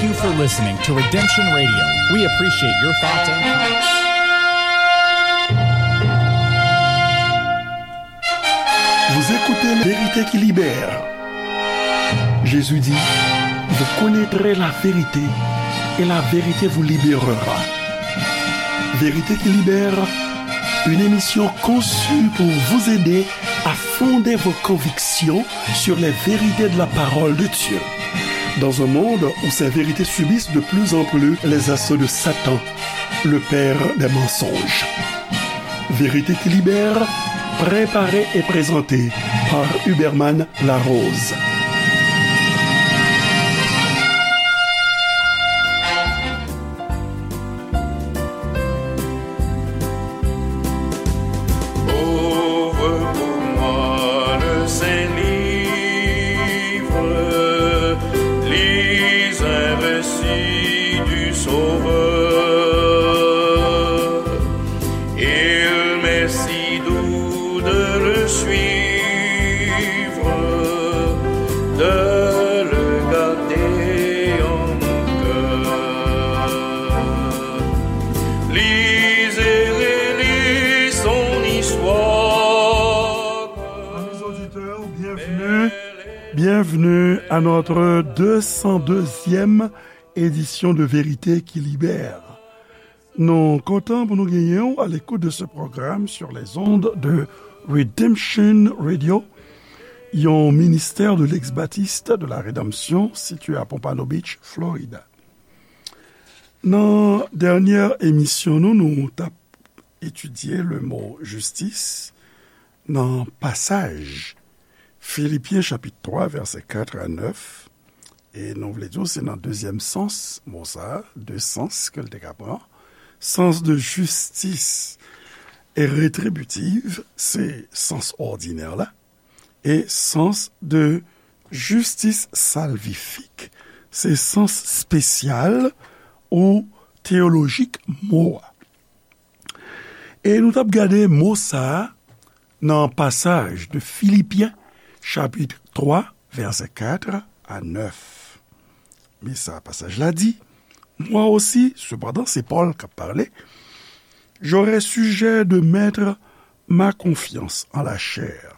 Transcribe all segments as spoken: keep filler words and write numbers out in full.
Thank you for listening to Redemption Radio. We appreciate your thoughts and comments. Vous écoutez La Vérité qui libère. Jésus dit, vous connaîtrez la vérité et la vérité vous libérera. Vérité qui libère, une émission conçue pour vous aider à fonder vos convictions sur les vérités de la parole de Dieu. Dans un monde où ces vérités subissent de plus en plus les assauts de Satan, le père des mensonges. Vérité qui libère, préparée et présentée par Huberman Larose. Ouvre pour moi le Saint-Livre, lis un récit du Sauveur. Il m'est si doux de le suivre, de le garder en mon cœur. Lis et relis son histoire. Amis auditeurs, bienvenue. Bienvenue à notre deux cent deuxième édition de Vérité qui libère. Nou kontan pou nou genyen w à l'écoute de ce programme sur les ondes de Redemption Radio, yon ministère de l'ex-baptiste de la rédemption situé à Pompano Beach, Florida. Nan dènyè emisyon nou, nou t ap etidye le mo jistis nan pasaj Filipyen chapit twa, vèsè kat a nèf. E nou vle di w, se nan dezyèm sans mo sa a, de sans ke l te ka pran. Sans de justice retributive, se sans òdinè la, e sans de justice salvifique, se sans espesyal ou teyolojik mo a. E nou t ap gade mo sa a nan pasaj de Filipyen, chapit twa, vèsè kat a nèf. Men sa pasaj la di, Moi aussi, cependant, se Pòl k ap pale, j'aurai sujet de mettre ma confiance en la chair.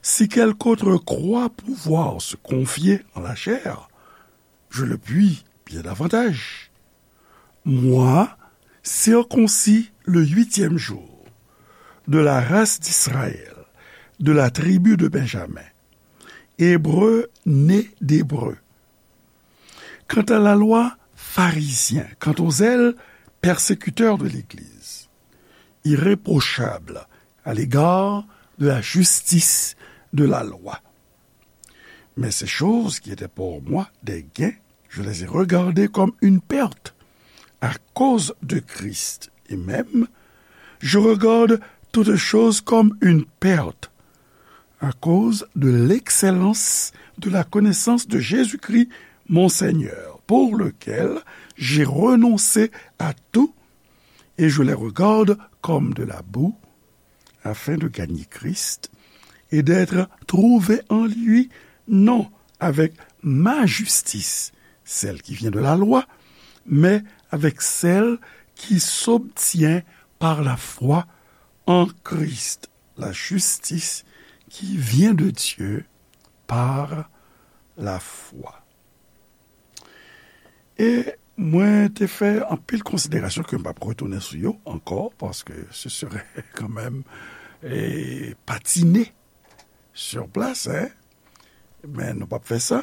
Si quelque autre croit pouvoir se confier en la chair, je le puis bien davantage. Moi, circoncis le huitième jour, de la race d'Israël, de la tribu de Benjamin, hébreu né d'hébreu. Quant à la loi, pharisien, quant au zèle, persécuteur de l'Église, irréprochable à l'égard de la justice de la loi. Mais ces choses qui étaient pour moi des gains, je les ai regardées comme une perte à cause de Christ. Et même, je regarde toutes choses comme une perte à cause de l'excellence de la connaissance de Jésus-Christ, mon Seigneur, pour lequel j'ai renoncé à tout et je les regarde comme de la boue, afin de gagner Christ et d'être trouvé en lui, non avec ma justice, celle qui vient de la loi, mais avec celle qui s'obtient par la foi en Christ, la justice qui vient de Dieu par la foi. E mwen te fè anpil konsiderasyon ke m p ap retounen sou yo ankò, paske se serait quand même, eh, patiner sur place, hein. Men nou p ap fè sa.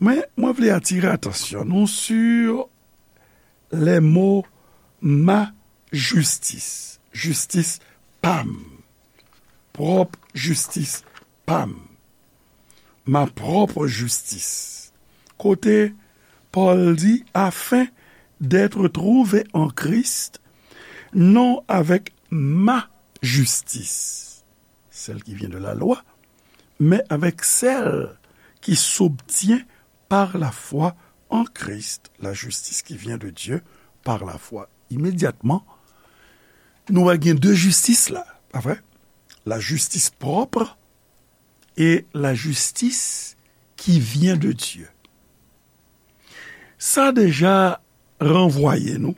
Men mwen vle atire atansyon nou sur les mots ma justice, jistis pa m, pwòp jistis pa m, ma propre justice. Kote Pòl di, afin d'être trouvé en Christ, non avec ma justice, celle qui vient de la loi, mais avec celle qui s'obtient par la foi en Christ, la justice qui vient de Dieu par la foi. Imedyatman, nou wè gen de jistis la, pa vre? La justice propre et la justice qui vient de Dieu. Sa deja ranvwaye nou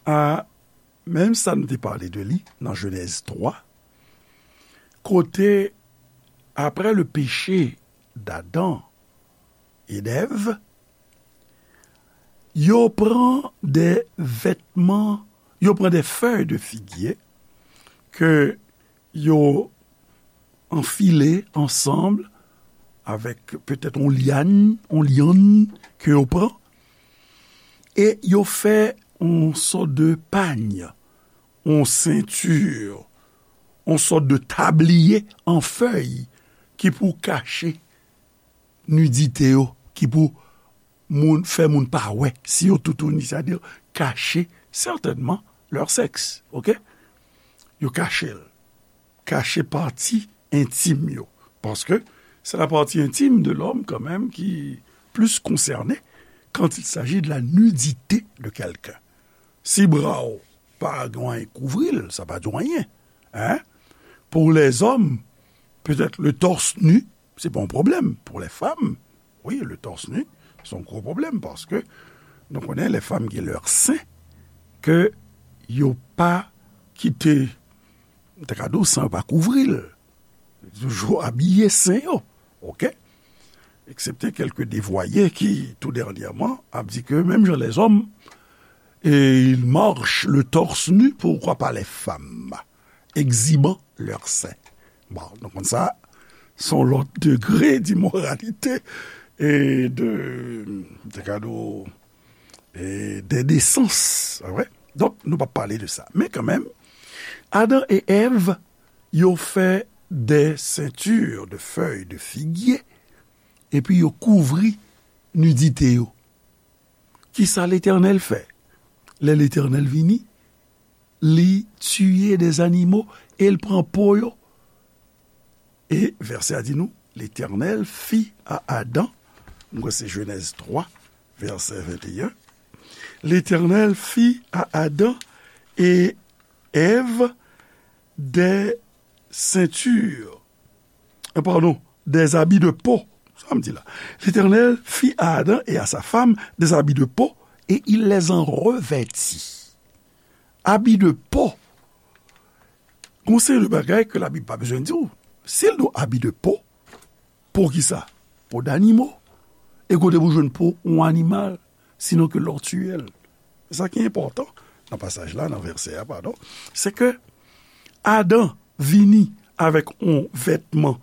a menm sa nou te pale de li nan Jenèz twa, kote, apre le péché d'Adam et d'Ève, yo pran de vètman, yo pran de fèy de figye ke yo anfile ansanm avèk petèt yon lyann, yon lyann ke yo pran, e yo fè yon sòt de pany, yon senti, yon sòt de tabliye an fèy ki pou kache nidite yo, ki pou moun, fè moun pa wè si yo toutouni, sètadi kache sètènman lè sèks, oke? Yo kache l. Kache pati entim yo. Paske c'est la partie intime de l'homme quand même qui plus concernée quand il s'agit de la nudité de quelqu'un. Si bra w pa gen anyen kouvri l, sa pa di w anyen. Hein? Pour les hommes, peut-être le torse nu, c'est pas un problème. Pour les femmes, oui, le torse nu, c'est un gros problème parce que nou konnen les femmes gen lè sen ke yo pa kite, m ta ka di w, san yo pa kouvri l. Toujou abiye sen yo, oke? Eksepte kèlke devwaye ki, tou dènyèman, ap di ke menm jan lèzòm, e, ils marchent le torse nu, pourquoi pas les femmes? Exhibant leurs seins. Bon, donk, konn sa, se yon lòt degre d'imoralité e de, de kado, e d'endesans, pa vre? Donk, nou p ap pale de sa. Men kanmenm, Adan e Èv, yo fè de senti de fèy de figye, epi yo kouvri nidite yo. Kisa Letènèl fè? Lè Letènèl vini, li tiye de zanimo e l pran po yo. E vèsè a di nou, Letènèl fit à Adam, m kwè se Jenèz twa, vèsè venteyen, Letènèl fit à Adam et Ève des ceintures, euh, pardon, des habits de peau. Sa m di la. L'Éternel fit à Adam et à sa femme des habits de peau et il les en revêtit. Abi de po. Gon seri de bagay ke Labib pa bezwen di w. Si l di w abi de po, po kisa? Po danimo. E kote pou jwenn po yon animal, sinon ke lè w tiye l? Sa ki enpòtan nan pasaj la, nan vèsè a, padon, se ke Adan vini avèk yon vètman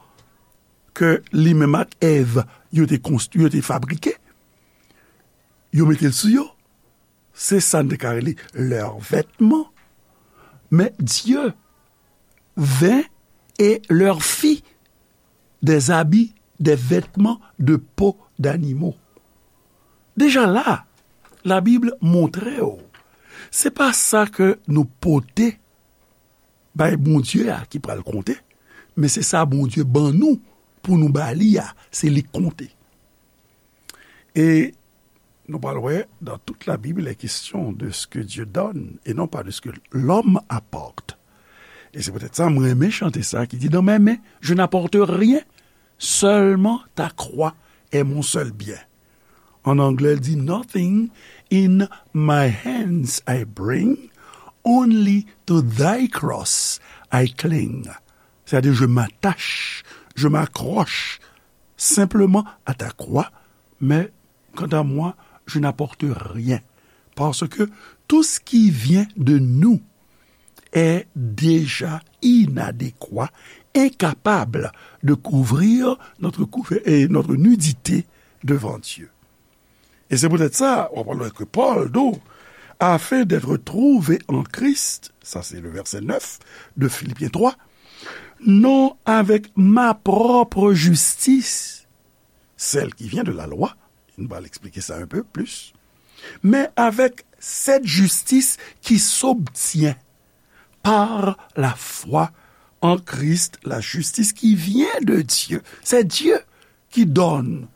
ke li menm ak Èv yo te konstwi, yo te fabrike, yo mete l sou yo. Se sa n te ka rele lè vètman. Men Dye vin e lè fi des habits, des vêtements de peau d'animaux. Deja la, Labib montre w, se pa sa ke nou pote bay Bondye a ki pral konte, men se sa Bondye ban nou pou nou ba li a, se li k konte. E nou pral wè, dans toute la Bible, il est question de ce que Dieu donne et non pas de ce que l'homme apporte. E se poutèt sa, mwen renmen chante sa ki di, dans mes mains, je n'apporte rien, seulement ta croix est mon seul bien. An anglè, l di, nothing in my hands I bring, only to thy cross I cling. C'est-à-dire, je m'attache, je m'accroche simplement à ta croix, mais quant à moi, je n'apporte rien. Parce que tout ce qui vient de nous est déjà inadéquat, incapable de couvrir notre, couver- et notre nudité devant Dieu. E se poutèt sa, w ap wè ke Pòl di w, afin d'être trouvé en Christ, sa se le verset neuf de Philippiens trois, non avec ma propre justice, celle qui vient de la loi, nou va eksplike sa un peu plus, mais avec cette justice qui s'obtient par la foi en Christ, la justice qui vient de Dieu. C'est Dieu qui donne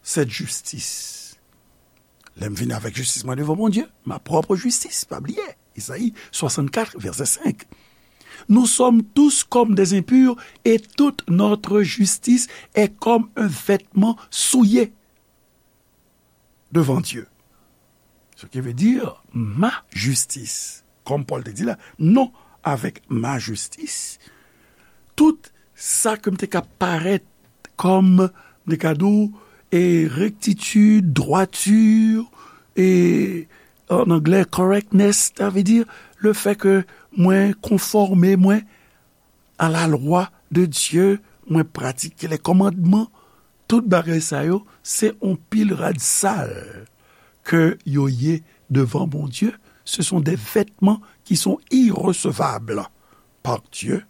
cette justice. Lè m vini avèk jistis mwen devan Bondye, ma propre justice, pa bliye, Esayi swasannkat, vèsè senk. Nous sommes tous comme des impurs et toute notre justice est comme un vêtement souillé. devant Dieu. Ce qui veut dire ma justice. Comme Paul te dit là, non, avec ma justice, tout sa ke m te ka parèt kòm, m te ka di w, e rectitude, droiture, e en anglais correctness, sa vle di le fait que mwen konfòme mwen à la loi de Dieu, mwen pratike les commandements, tout bagay sa yo, se yon pil rad sal ke yo ye devan Bondye. Ce sont des vêtements qui sont irrecevables par Dieu.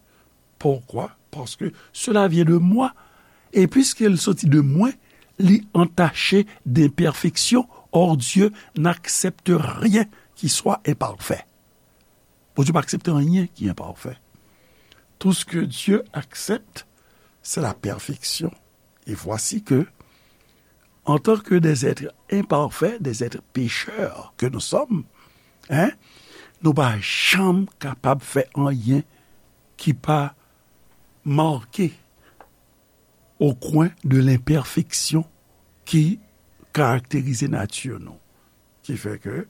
Pourquoi? Parce que cela vient de moi. Et puisqu'il sortit de moi, li entaché d'imperfection. Or, Dieu n'accepte rien qui soit imparfait. Bondye pa aksepte anyen ki enpafè. Tout ce que Dieu accepte, c'est la perfection. Et voici que, en tant que des êtres imparfaits, des êtres pécheurs que nous sommes, hein, nou pa janm kapab fè anyen ki pa make au coin de l'imperfection ki karakterize nati nou. Ki fè ke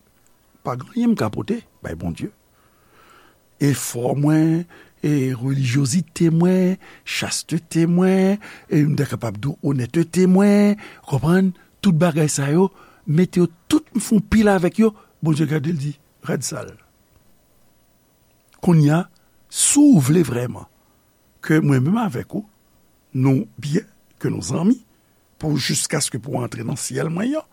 pa gen anyen m ka pote bay Bondye. Efò mwen, e relijyozite mwen, chastete mwen, e m ta kapab di w onètete mwen, konprann, tout bagay sa yo, mete yo tout, m fè yon pil avèk yo, Bondye gade l di, rad sal. Kounye a, si w vle vrèman ke mwen menm avèk ou, nou byen, ke nou zanmi, pou jiskaske pou antre nan syèl mwen an,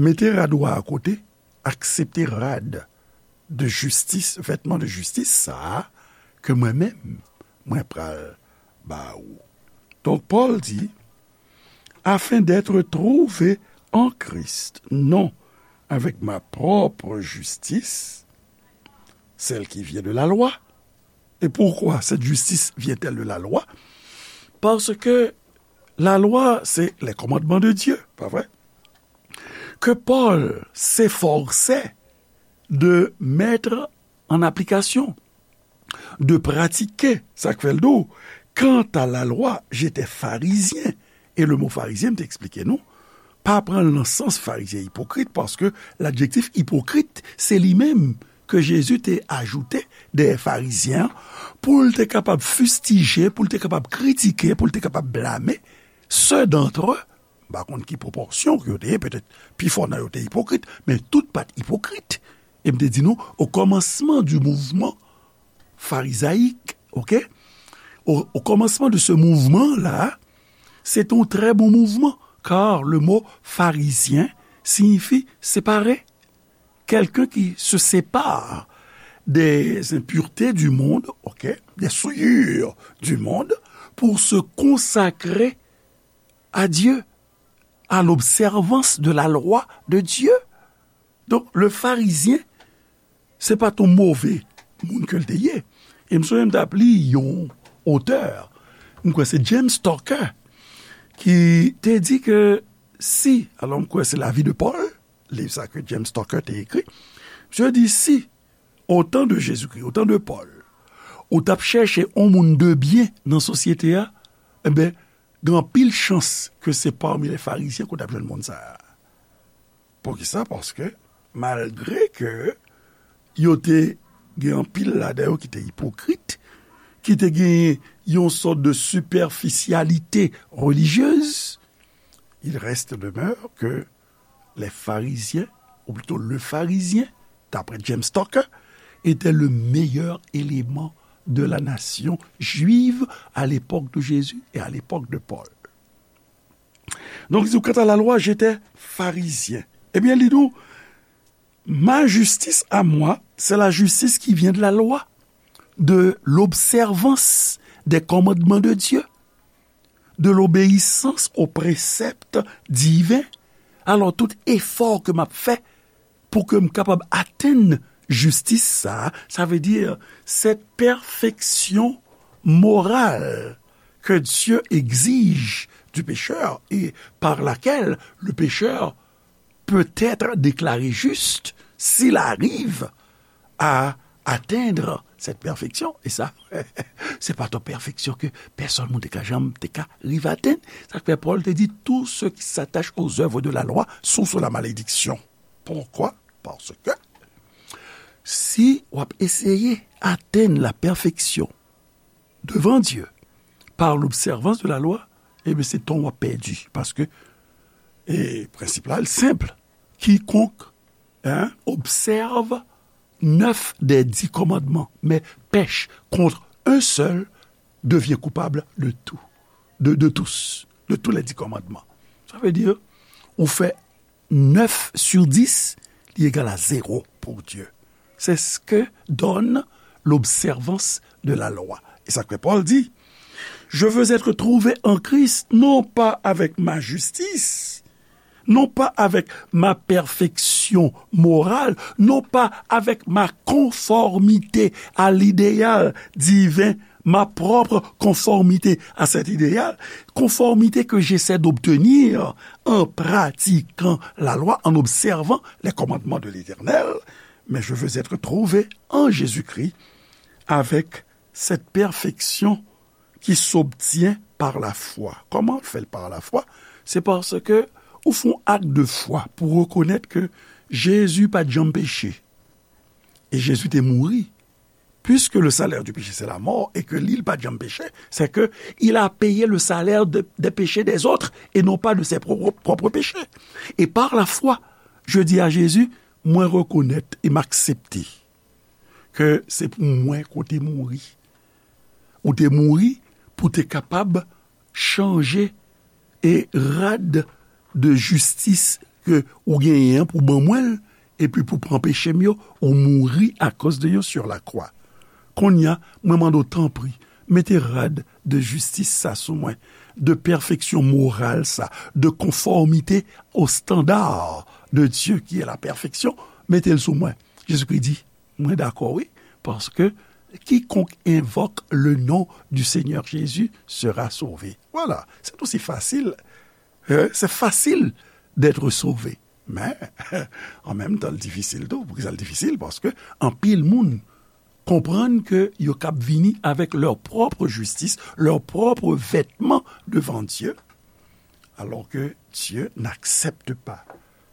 mete rad ou a akote, aksepte rad de jistis, vètman de jistis sa a, ke mwen menm, mwen pral ba ou. Donk, Pòl di, afin d'être trouvé en Christ, non avec ma propre justice, celle qui vient de la loi. Et pourquoi cette justice vient-elle de la loi? Parce que la loi, c'est les commandements de Dieu, pas vrai? Que Paul s'efforçait de mettre en application, de pratiquer, sa k fè l di w, quant à la loi, j'étais pharisien. E le mo farizyen, m te eksplike nou, pa pran l nan sans farizyen ipokrit, paske ladjektif ipokrit, se li menm ke Jezi te ajoute dèyè farizyen an, pou l te kapab fistije, pou l te kapab kritike, pou l te kapab blame, ceux d'entre eux, m pa konn ki pwopòsyon ke yo te ye, petèt pifò nan yo te ipokrit, men tout pa t ipokrit. E m te di nou, au commencement du mouvement pharisaique, ok? Au, au commencement de ce mouvement-là, c'est un très bon mouvement, car le mot pharisien signifie séparé. Quelqu'un qui se sépare des impuretés du monde, ok, des souillures du monde, pour se consacrer à Dieu, à l'observance de la loi de Dieu. Donk, le farizyen, se pa t yon move moun ke l te ye. E m sonje m t ap li yon otè, m kwè se James Tucker, ki te di ke si, alò m kwè se La vie de Paul, liv sa ke James Tucker te ekri, misye di si, au temps de Jésus-Christ, au temps de Paul, ou t ap chèche yon moun de byen nan sosyete a, enben, gen anpil chans ke se pami lè farizyen ke w t ap jwenn moun sa a. Poukisa? Paske, malgre ke yo te gen anpil ladan yo ki te ipokrit, ki te gen yon sòt de siperfisyalite relijyez, il reste demeure que les pharisiens, ou plutôt le pharisien, d'après James Tucker, était le meilleur élément de la nation juive à l'époque de Jésus et à l'époque de Paul. Donk, li di, quant à la loi, j'étais pharisien. Ebyen, li di w, ma justice à moi, c'est la justice qui vient de la loi, de l'observance des commandements de Dieu, de l'obéissance aux préceptes divins. Alò, tout efò ke m ap fè pou ke m kapab atenn jistis sa a, sa vle di, cette perfection morale que Dieu exige du pécheur et par laquelle le pécheur peut être déclaré juste s'il arrive à atteindre cette perfection. E sa, se pa t yon pèfeksyon ke pèsonn moun te ka janm te ka rive atenn. Sa k fè Pòl te di, tous ceux qui s'attachent aux œuvres de la loi sont sous la malédiction. Pourquoi? Parce que si w ap eseye atenn la perfeksyon devant Dieu par l'observance de la loi, ebyen, se tan w ap pèdi. Paske, e, prensip la, l senp. Quiconque, hein, observe neuf des dix commandements, mais pèche contre un seul, devient coupable de tout, de, de tous, de tous les dix commandements. Ça veut dire, ou fè neuf sur dix, li egal a zéro pour Dieu. C'est ce que donne l'observance de la loi. E sa ke Pòl di, je veux être trouvé en Christ, non pas avec ma justice, non pas avec ma perfection morale, non pas avec ma conformité à l'idéal divin, ma propre conformité à cet idéal, conformité que j'essaie d'obtenir en pratiquant la loi, en observant les commandements de l'Éternel, mais je veux être trouvé en Jésus-Christ avec cette perfection qui s'obtient par la foi. Kòman l fè l par la foi? Se paske ou fè yon ak de fwa pou rekonèt ke Jezi pa t janm peche. E Jezi te mouri. Puisque le salaire du péché, c'est la mort, et que li, li pa t janm peche, c'est que il a payé le salaire de, des péchés des autres et non pas de ses propres, propres péchés. Et par la foi, je dis à Jésus, mwen rekonèt e m aksepte ke se pou mwen ke w te mouri. Ou te mouri pou te kapab chanje e rad de jistis ke ou genyen an pou ban mwen l, epi pou pran peche m yo, ou mouri akoz de yo sur la croix. Kounye a, mwen mande w, tanpri, mete rad de jistis sa sou mwen, de pèfeksyon moral sa, de conformité au standard de Dieu qui est la perfection, mete l sou mwen. Jezikri di, mwen dakò, wi, paske quiconque invoque le nom du Seigneur Jésus sera sauvé. Voilà, c'est aussi facile. Euh, c'est facile d'être sauvé. Men, an menm tan, l difisil tou. Poukisa l difisil? Paske anpil moun konprann ke yo kab vini avec leur propre justice, leur propre vêtement devant Dieu, alors que Dieu n'accepte pas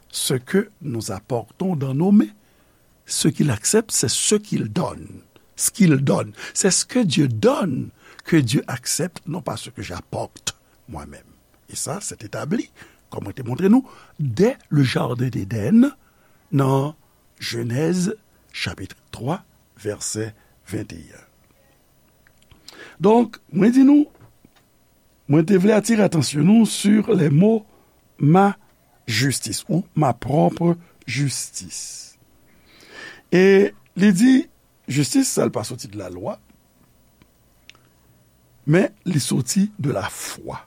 ce que nous apportons dans nos mains. Ce qu'il accepte, c'est ce qu'il donne. Ce qu'il donne. C'est ce que Dieu donne que Dieu accepte, non pas ce que j'apporte moi-même. E sa, se t etabli, kòm mwen te montre nou, dès le jardin d'Éden, nan Jenèz, chapit twa, vèsè venteyen. Donk, mwen di nou, mwen te vle atire atansyon nou sur les mots ma justice ou ma propre justice. E li di, jistis sa, l pa soti de la lwa, men li soti de la fwa.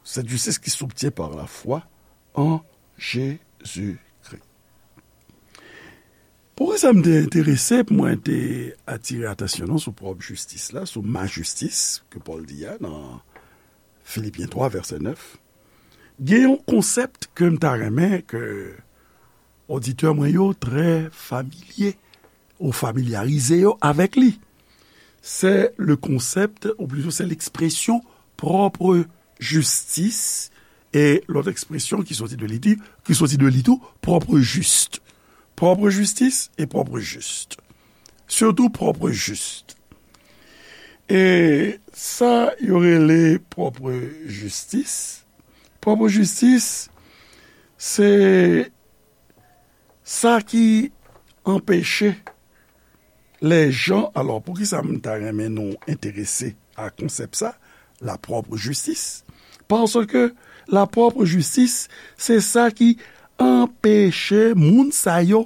Cette justice qui s'obtient par la foi en Jésus-Christ. Poukisa m te enterese pou mwen te atire atansyon nou sou pwòp jistis la, sou ma jistis, ke Pòl di a nan Filipyen twa, vèsè nèf? Gen yon konsèp ke m ta renmen ke oditè mwen yo trè familye ou familyarize yo avèk li. C'est le concept, ou plutôt c'est l'expression propre justice, e lòt ekspresyon ki soti de li, ki soti de li tou, propre juste. Propre justice et propre juste. Surtout propre juste. E sa yo rele propre justice. Propre justice, se sa ki anpeche lè jan, alò, poukisa m ta renmen nou enterese a konsèp sa, la propre justice? Paske la propre justice, se sa ki anpeche moun sa yo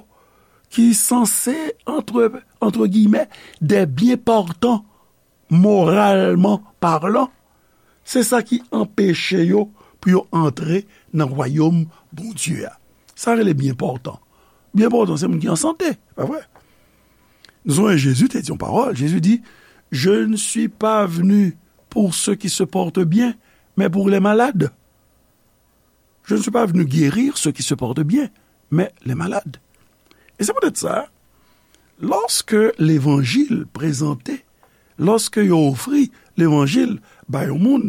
ki sanse, entre, entre guillemets, des bien portants, moralman palan, se sa ki anpeche yo pou yo antre nan wayòm Bondye a. Sa rele byen pòtan. Byen pòtan, se moun ki an sante, pa vre? Nou sonje Jezi te di yon pawòl. Jezi di, je ne suis pas venu pour ceux qui se portent bien, mais pour les malades. Je ne suis pas venu guérir ceux qui se portent bien, mais les malades. E se poutèt sa, Lòske levanjil prezante, lòske yo ofri levanjil ba yon moun,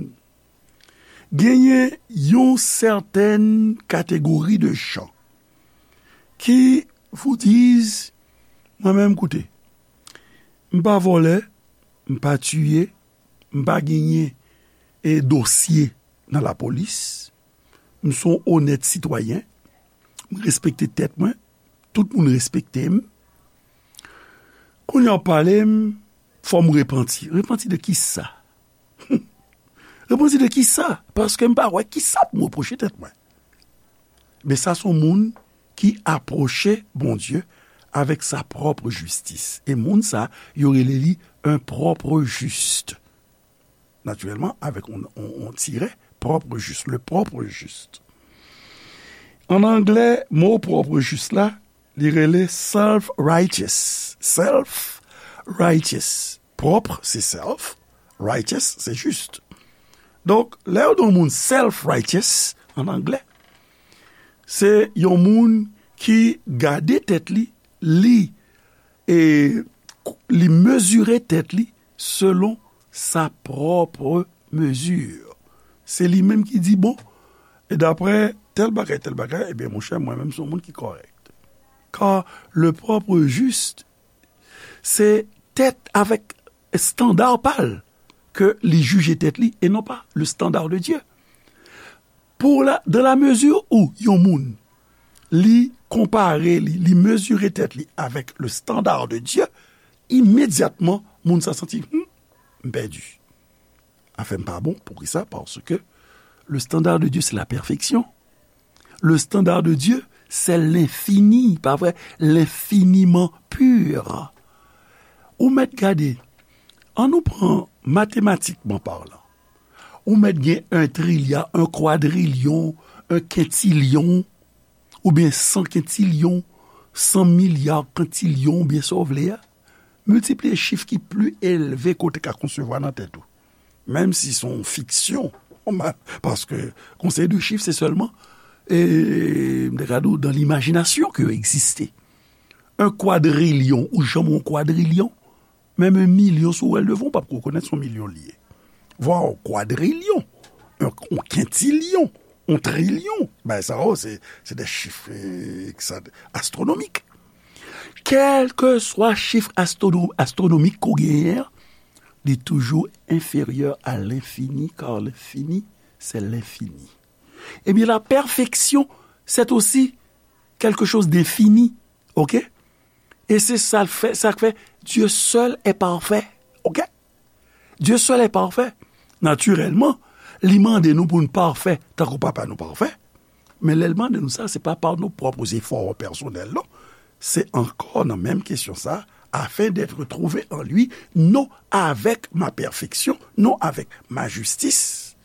genyen yon sètèn kategori de jan ki vous disent, mwen menm, koute, m pa vòlè, m pa tiye, m pa genyen e dosye nan lapolis, m se yon onèt sitwayen, m respekte tèt mwen, tout moun respekte m. Kounye a w pale m, fò m repanti. Repanti de kisa? Repanti de kisa? Paske m pa wè kisa pou m repwoche tèt mwen. Men sa se yon moun ki apwoche Bondye avèk sa pwòp jistis. E moun sa, yo rele li un propre juste. Natirèlman, avèk yon, yon, yon tirè, propre juste, le propre juste. An anglè, mo propre juste la, li rele self-righteous. Self-righteous. Pwòp, se self, righteous, se jis. Donk, lè yo di yon moun self-righteous, an anglè, se yon moun ki gade tèt li, li, e, li mezire tèt li selon sa pwòp mezi. Se li menm ki di, bon, e daprè tèl bagay, tèl bagay, ebyen, monchè, mwen menm, se yon moun ki kòrèk. Car le propre juste, se tèt avèk estanda pa l ke li jije tèt li, e non pa le standard de Dieu. Pour la, dans la mesure où yon moun, li konpare li, li mezire tèt li avèk le standard de Dieu, imedyatman, moun sa santi, hmm, m pèdi. Afè m pa bon, poukisa? Paske le standard de Dieu, c'est la perfection. Le standard de Dieu, c'est l'infini, pa vre? L'infiniment pur. Ou mèt gade, ann nou pran matematikman palan. Ou mèt gen un trilya, un kwadrilyon, un kentilyon, oubyen san kentilyon, san milya kentilyon, oubyen sa w vle a. Miltipliye chif ki pli elve ke w te ka konsevwa nan tèt ou. Menm si se yon fiksyon, paske konsèy de chif, se sèlman, e, m te ka di w, dans l'imagination ke yo egziste. Un kwadrilyon, ou janm wè yon kwadrilyon, menm yon milyon, si w wè l devan w, w p ap rekonèt se yon milyon li ye. Vwa yon kwadrilyon, yon, yon kentilyon, yon trilyon, bagay sa yo, se, se de chif, e, ki sa, astwonomik. Kèlkeswa chif astwono-, astwonomik ke w genyen an, li toujou enfèryè a lenfini, car l'infini, c'est l'infini. Ebyen, la pèfeksyon, c'est aussi quelque chose d'infini, oke? E se sa l fè, sa k fè, Dieu seul est parfait, oke? Dieu seul est parfait. Natirèlman, li mande nou pou n pafè, tankou Papa nou pafè. Men lè l mande nou sa, se pa pa nou pwòp efò pèsonèl, non. Se ankò nan menm kesyon sa, afin d'être trouvé en lui, non avec ma perfection, non avec ma justice,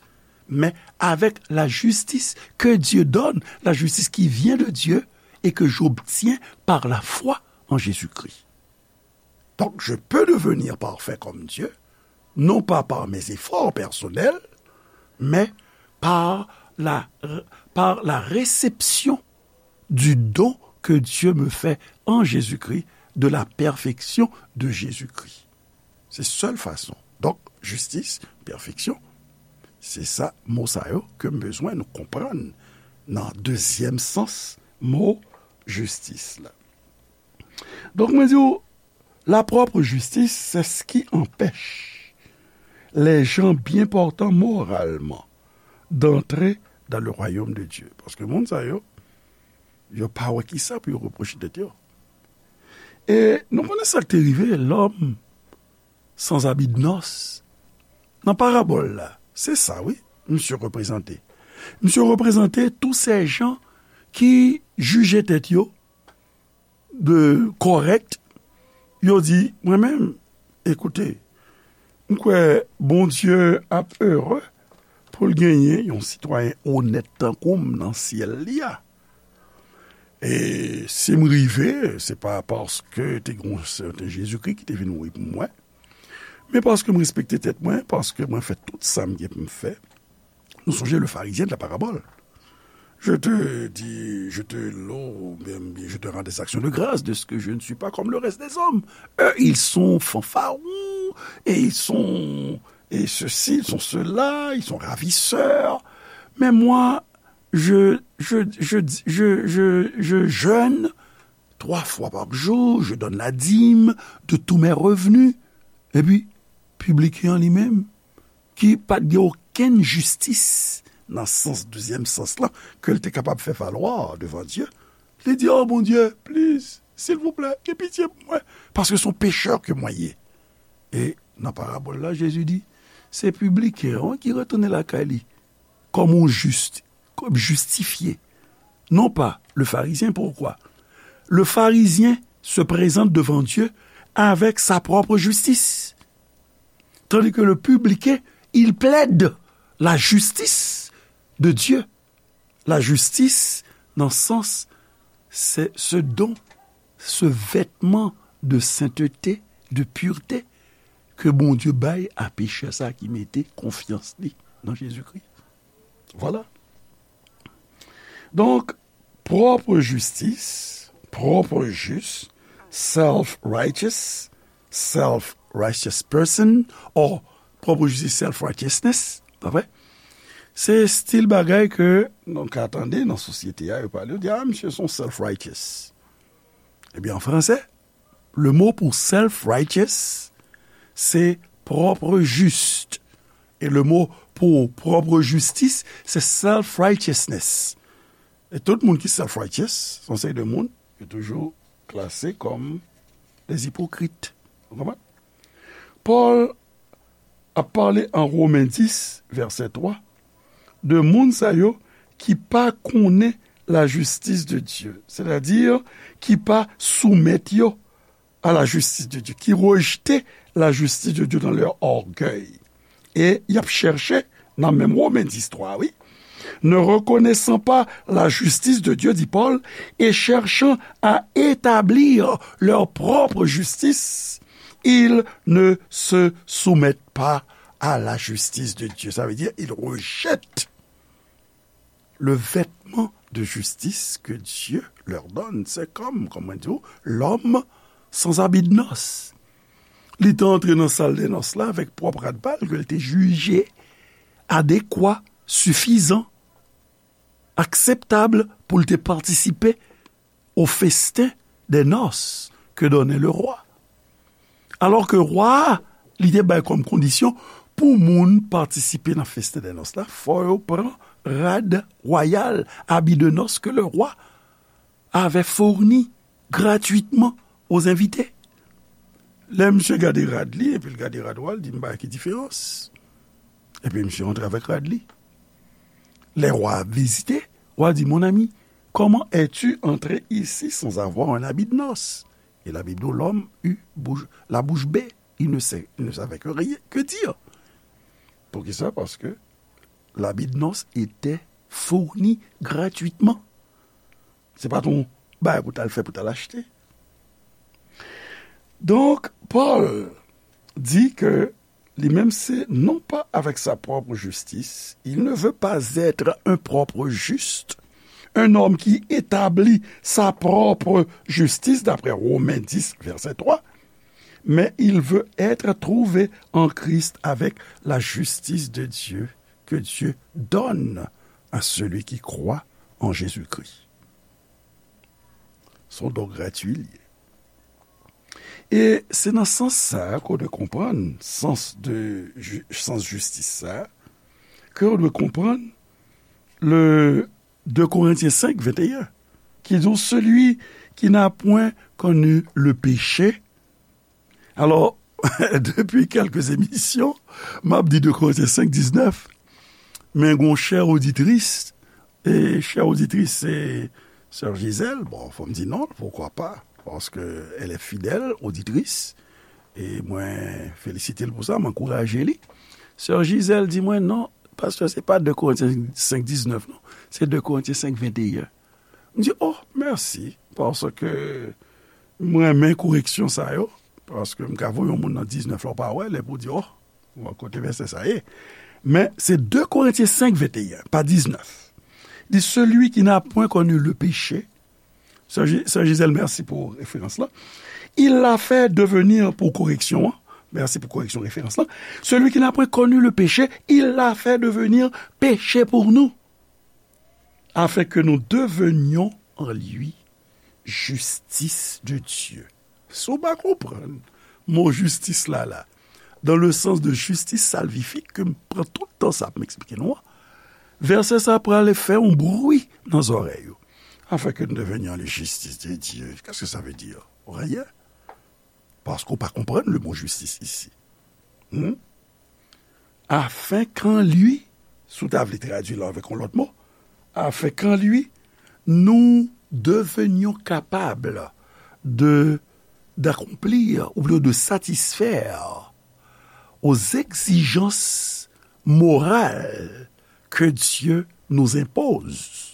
mais avec la justice que Dieu donne, la justice qui vient de Dieu et que j'obtiens par la foi en Jésus-Christ. Donc, je peux devenir parfait comme Dieu, non pas par mes efforts personnels, mais par la, par la réception du don que Dieu me fait en Jésus-Christ, de la perfection de Jésus-Christ. Se sèl fason. Donk, jistis, pèfeksyon, se sa, mo sa yo ke m bezwen nou konprann nan dezyèm sans mo jistis la. Donk, mwen di w, la propre justice, c'est ce qui empêche les gens bien portants moralement d'entrer dans le royaume de Dieu. Paske moun sa yo, yo pa wè kisa pou yo repwoche tèt yo. E nou konnen sa k te rive lòm sans habit de noces. Nan parabòl la, se sa, wi, misye reprezante. Misye reprezante tous ces gens ki jije tèt yo de kòrèk, yo di, mwen menm, ekoute, m kwè Bondye ap ere pou l genyen yon sitwayen onèt tankou m nan syèl li a. E si m rive, se pa paske te gen yon sèten Jezikri ki te vin mouri pou mwen, men paske m respekte tèt mwen, paske mwen fè tout sa m gen pou m fè. Nou sonje le Pharisien de la parabole. Je te dis, je te loue, bien, bien, je te rends des actions de grâce de ce que je ne suis pas comme le reste des hommes. Eux, ils sont fanfarons, et ils sont, et ceci, ils sont cela, ils sont ravisseurs. Mais moi, je, je, je, je, je, je jeûne trois fois par jour, je donne la dîme de tous mes revenus. Epi, pibliken an li menm, ki pa t gen okenn jistis nan sans, dezyèm sans lan, ke l te kapab fè valwa devan Dye, li di, "Oh, Bondye, please, silvouplè, gen pitye pou mwen, paske se yon pechè ke mwen ye." E nan parabòl la, Jezi di, se pibliken an ki retounen lakay li kòm yon jis, kòm jistifye, non pa le Pharisien. Pourquoi? Le Pharisien se présente devant Dieu avec sa propre justice. Tandis que le publicain, il plaide la justice de Dieu. La justice, nan sans, se ce don, ce vêtement de sainteté, de pureté, ke Bondye bay a pechè sa ki mete konfyans li nan Jezikri. Vwala. Donk, pwòp jistis, pwòp jis, self-righteous, self-righteous person, or pwòp jistis, self-righteousness, pa vre? Se stil bagay ke nou ka tande nan sosyete a, yo pale, yo di, "Ah, misye se yon self-righteous." Ebyen, an fransè, le mo pou self-righteous, se propre juste. E le mo pou pwòp jistis, se self-righteousness. E tout moun ki self-righteous, se yon seri de moun ki toujou klase kòm des hypocrites. Ou konprann? Pòl ap pale an Women dis, vèsè twa, de moun sa yo ki pa konnen la justice de Dieu, sètadi ki pa soumèt yo à la justice de Dieu, qui rejetait la justice de Dieu dans leur orgueil. E y ap chèche, nan menm Women dis twa, wi, ne reconnaissant pas la justice de Dieu, dit Paul, et cherchant à établir leur propre justice, ils ne se soumettent pas à la justice de Dieu. Ça veut dire, ils rejettent le vêtement de justice que Dieu leur donne. C'est comme, kòman di w, l'homme sans habit de noces. Li te antre nan sal dè nòs la avèk pwòp rad pa l ke l te jije adekwa, sifizan, akseptab pou l te patisipe au festin des noces que donnait le roi. Alò ke wa a, li te bay kòm kondisyon pou moun patisipe nan festin dè nòs la, fò yo pran rad wayal, habit de noces que le roi avait fourni gratuitement aux invités. Lè misye gade rad li, epi l gade rad wa, l di, "M pa wè ki diferans." Epi misye antre avèk rad li. Lè wa a vizite, wa di, "Mon ami, comment es-tu entré ici sans avoir un habit de noces?" Et la Bible dit, l'homme eut bouche, la bouche bée. Il ne sait, il ne savait que rien, que dire. Poukisa? Paske l'habit de noces était fourni gratuitement. Se pa t yon bagay pou t al fè, pou t al achte. Donk, Pòl di ke li menm se non pas avec sa propre justice, il ne veut pas être un propre juste, un homme qui établit sa propre justice, d'après Romains dix, verset trois, mais il veut être trouvé en Christ avec la justice de Dieu que Dieu donne à celui qui croit en Jésus-Christ. Se yon don gratui li ye. E se nan sans sa a ke w dwe konprann, sans de ju-, sans jistis sa a, ke w dwe konprann le deux Corinthiens cinq, vingt et un, ki di, celui qui n'a point connu le péché. Alò, depi kèlke emisyon, m ap di deux Corinthiens cinq, dix-neuf, men gon chè oditris, e chè oditris se sè Gisèle, bon, fò m di non, pourquoi pas, parce que elle est fidèle auditrice, e mwen felisite l pou sa, m ankouraje li. Sè Gisèle di mwen, "Non, pastè, se pa deux Corinthiens cinq, dix-neuf, non, se deux Corinthiens cinq, vingt et un." M di, "Oh, mèsi, paske m renmen koreksyon sa yo, paske m ka voye yon moun nan diznèf la, w pa wè l, epi w di, 'Oh, kote vèsè sa ye?'" Men, se deux Corinthiens cinq, vingt et un, pa diznèf. Di, celui qui n'a point connu le péché, Sè Ji-, Sè Gisèle, mèsi pou referans lan. Il l'a fait devenir, pou koreksyon an, mèsi pou koreksyon referans lan. Celui qui n'a point connu le péché, il l'a fait devenir péché pour nous, afin que nous devenions en lui justice de Dieu. Si w pa konprann mo jistis la, la, dans le sens de justice salvifique, ke m pran tout tan sa pou m eksplike nou an, vèsè sa pral fè yon bri nan zòrèy ou. Afin que nous devenions les justices de Dieu. Qu'est-ce que ça veut dire? Rien. Paske w pa konprann le mot justice ici. Hmm? Afin qu'en lui, si w ta vle tradui l avèk yon lòt mo, afin qu'en lui, nous devenions capables de, d'accomplir, ou plutôt de satisfaire aux exigences morales que Dieu nous impose.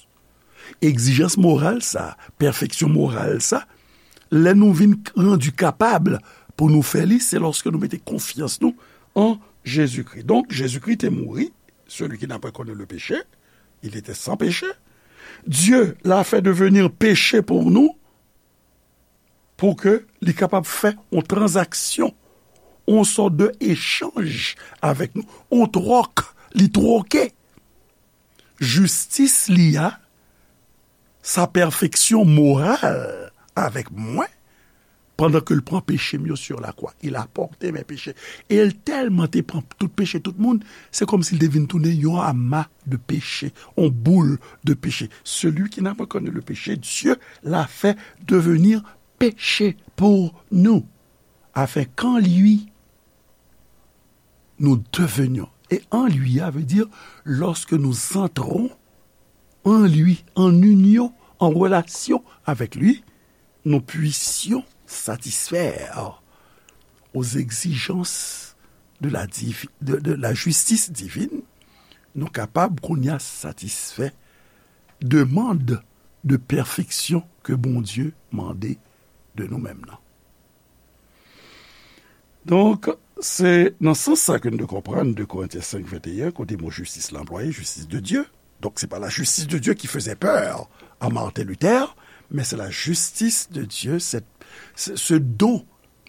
Egzijans moral sa, pèfeksyon moral sa, lè nou vin rann kapab pou nou fè li, se lòske nou mete konfyans nou an Jezikri. Donk, Jezikri te mouri, celui qui n'a pas connu le péché, il était sans péché. Dieu l'a fait devenir péché pour nous, pou ke li kapab fè yon tranzaksyon, yon sòt de echanj avèk nou, yon twòk, li twoke jistis li a, sa pèfeksyon moral avèk mwen, pandan ke l pran peche m yo sur la croix. Il a porté mes péchés. E l tèlman te pran tout peche tout moun, se kòmsi l te vin tounen yon ama de peche, yon boul de peche. Celui qui n'a pas connu le péché, Dieu l'a fait devenir péché pour nous, afin qu'en lui, nous devenions. Et en lui, ça veut dire, lorsque nous entrons en lui, en union, en relation avec lui, nous puissions satisfaire aux exigences de la divi-, de, de la justice divine, nou kapab kounye a satisfè demann de pèfeksyon ke Bondye mande de nou menm nan. Donk, se nan sans sa ke nou dwe konprann de Korentyen senk venteyen, kote mo jistis la anplwaye, justice de Dieu. Donk, se pa la justice de Dieu qui faisait peur à Martin Luther, mais c'est la justice de Dieu, c'est, c'est ce don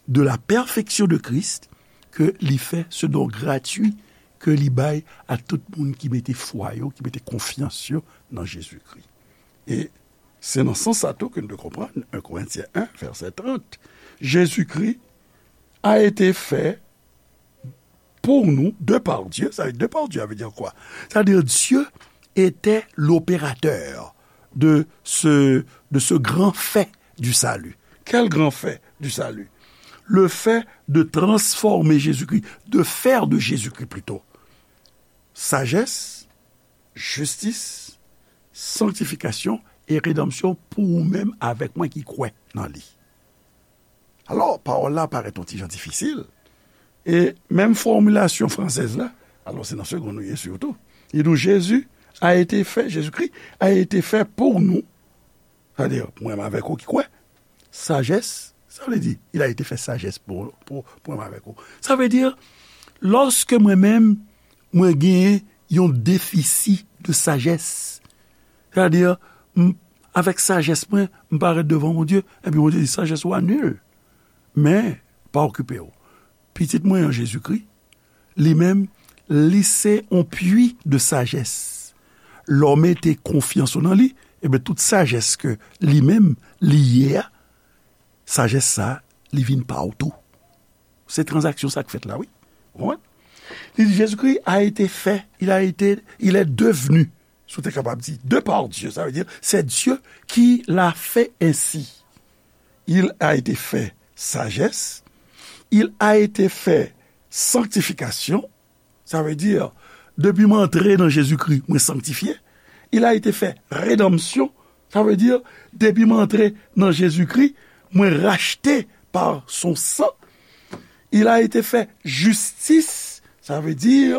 de la perfection de Christ, ke li fè, ce don gratuit ke li bay a tout moun ki mete fwa yo, ki mete konfyans yo nan Jezikri. E se nan sans sa tou ke nou dwe konprann en Korentyen en, vèsè trant, Jezikri a été fait pour nous de par Dieu. Ça veut dire, de par Dieu, ça veut dire quoi? C'est-à-dire, Dieu était l'opérateur de ce, de ce grand fait du salut. Quel grand fait du salut? Le fait de transformer Jésus-Christ, de faire de Jésus-Christ plutôt, sagesse, jistis, sanktifikasyon e redanmsyon pou ou menm avèk mwen ki kwè nan li. Alò, pawòl la parèt yon ti jan difisil. E menm fòmilasyon fransèz la, alò se nan segonn nou ye sitou. Li di w, Jésus a été fait, Jésus-Christ a été fait pour nous. Sa vle di, pou mwen avèk ou ki kwè, sajès, sa vle di, il a été fait sagesse pou, pou, pou mwen avèk ou. Sa vle di, lòske mwen menm, mwen genyen yon defisi de sajès, sa vle di, m, avèk sajès mwen, m parèt devan Bondye, epi Bondye di, sajès ou a nil. Men, pa okipe w. Pitit mwen an Jezikri, li menm, li se yon pwi de sajès. Lè w mete konfyans ou nan li, ebyen, tout sajès ke li menm, li ye a, sajès sa, li vin pa w tou. Se tranzaksyon sa k fèt la, wi. Ou konprann? Li di, Jésus-Christ a été fait, il a été, il est devenu, si w te kapab di, de par Dieu, sa vle di, c'est Dieu qui l'a fait ainsi. Il a été fait sagesse, il a été fait sanctification, sa vle di, depi m antre nan Jezikri, mwen sanktifye. Il a été fait rédemption, sa vle di, depi m antre nan Jezikri, mwen rachte pa son san. Il a été fait justice, sa vle di,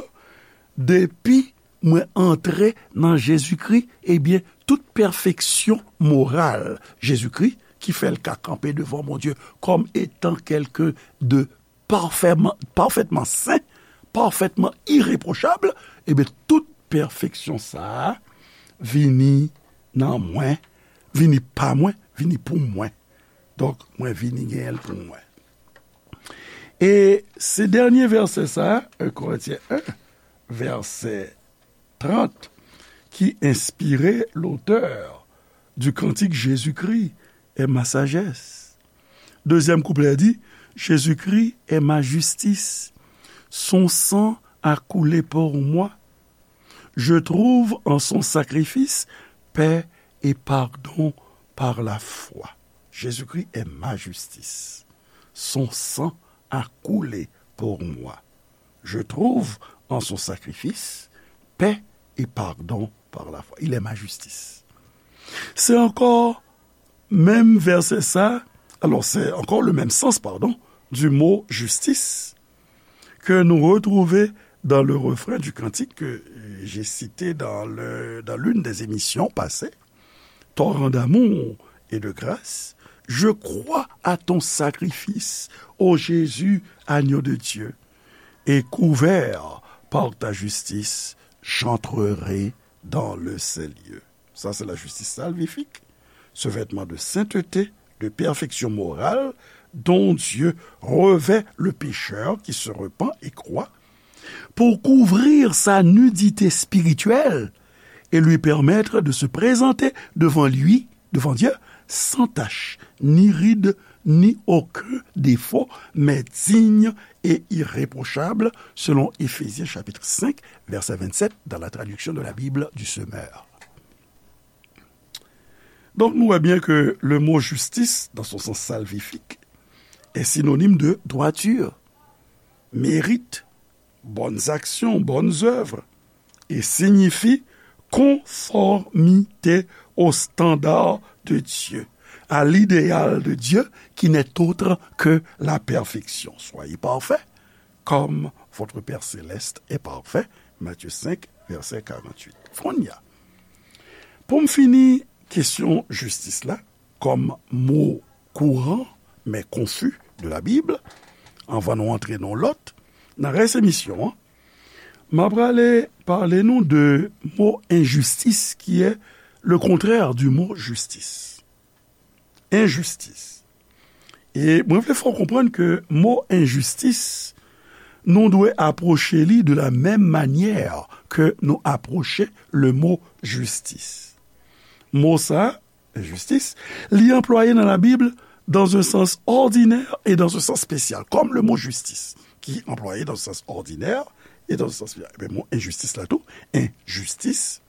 depi mwen antre nan Jezikri, ebyen, tout pèfeksyon moral Jezikri ki fè l ka kanpe devan Bondye kòm etan kèlken de parfètman, parfètman sen, parfètman irepwochab, ebyen, tout pèfeksyon sa a, vini nan mwen, vini pa mwen, vini pou mwen. Donk, mwen vini genyen l pou mwen. E se dènye vèsè sa, un Korentyen en, vèsè trant, ki enspire lotè du cantique Jésus-Christ est ma sagesse. Dezyèm kouplè di, Jésus-Christ est ma justice. Son sang a coulé pour moi. Je trouve en son sacrifice paix et pardon par la foi. Jésus-Christ est ma justice. Son sang a coulé pour moi. Je trouve en son sacrifice paix et pardon par la foi. Il est ma justice. Se ankò menm vèsè sa, alors c'est encore le même sens, pardon, du mot justice, que nous retrouvons dans le refrain du cantique que j'ai cité dans le, dans l'une des émissions passées. Torrent d'amour et de grâce, je crois à ton sacrifice, ô Jésus, agneau de Dieu, et couvert par ta justice, j'entrerai dans le saint lieu. Ça, c'est la justice salvifique, ce vêtement de sainteté, de perfection morale, dont Dieu revêt le pécheur qui se repent et croit, pour couvrir sa nudité spirituelle et lui permettre de se présenter devant lui, devant Dieu, sans tache, ni ride, ni aucun défaut, mais digne et irréprochable, selon Éphésiens chapitre cinq, verset vingt-sept, dans la traduction de la Bible du Semeur. Donc, nous voyons bien que le mot justice, dans son sens salvifique, est synonyme de droiture, mérite, bonnes actions, bonnes œuvres, et signifie conformité au standard de Dieu, à l'idéal de Dieu qui n'est autre que la perfection. Soyez parfaits, comme votre Père céleste est parfait. Matthieu cinq, verset quarante-huit. Kounye a, pou m fini kesyon jistis la, kòm mo kouran, men konfi de la Bib, anvan nou antre nan lòt, nan rès emisyon an, m ap prale pale nou de mo enjistis, ki est le contraire du mot justice. Enjistis. E mwen vle fè w konprann ke mo enjistis, nou dwe apwoche li de la menm manyè ke nou apwoche le mo jistis. Mo sa, enjistis, li anplwaye nan Labib dans un sens ordinaire et dans un sens spécial, comme le mot justice, qui est employé dans un sens ordinaire et dans un sens spécial. Ebyen, mo enjistis la tou, enjistis,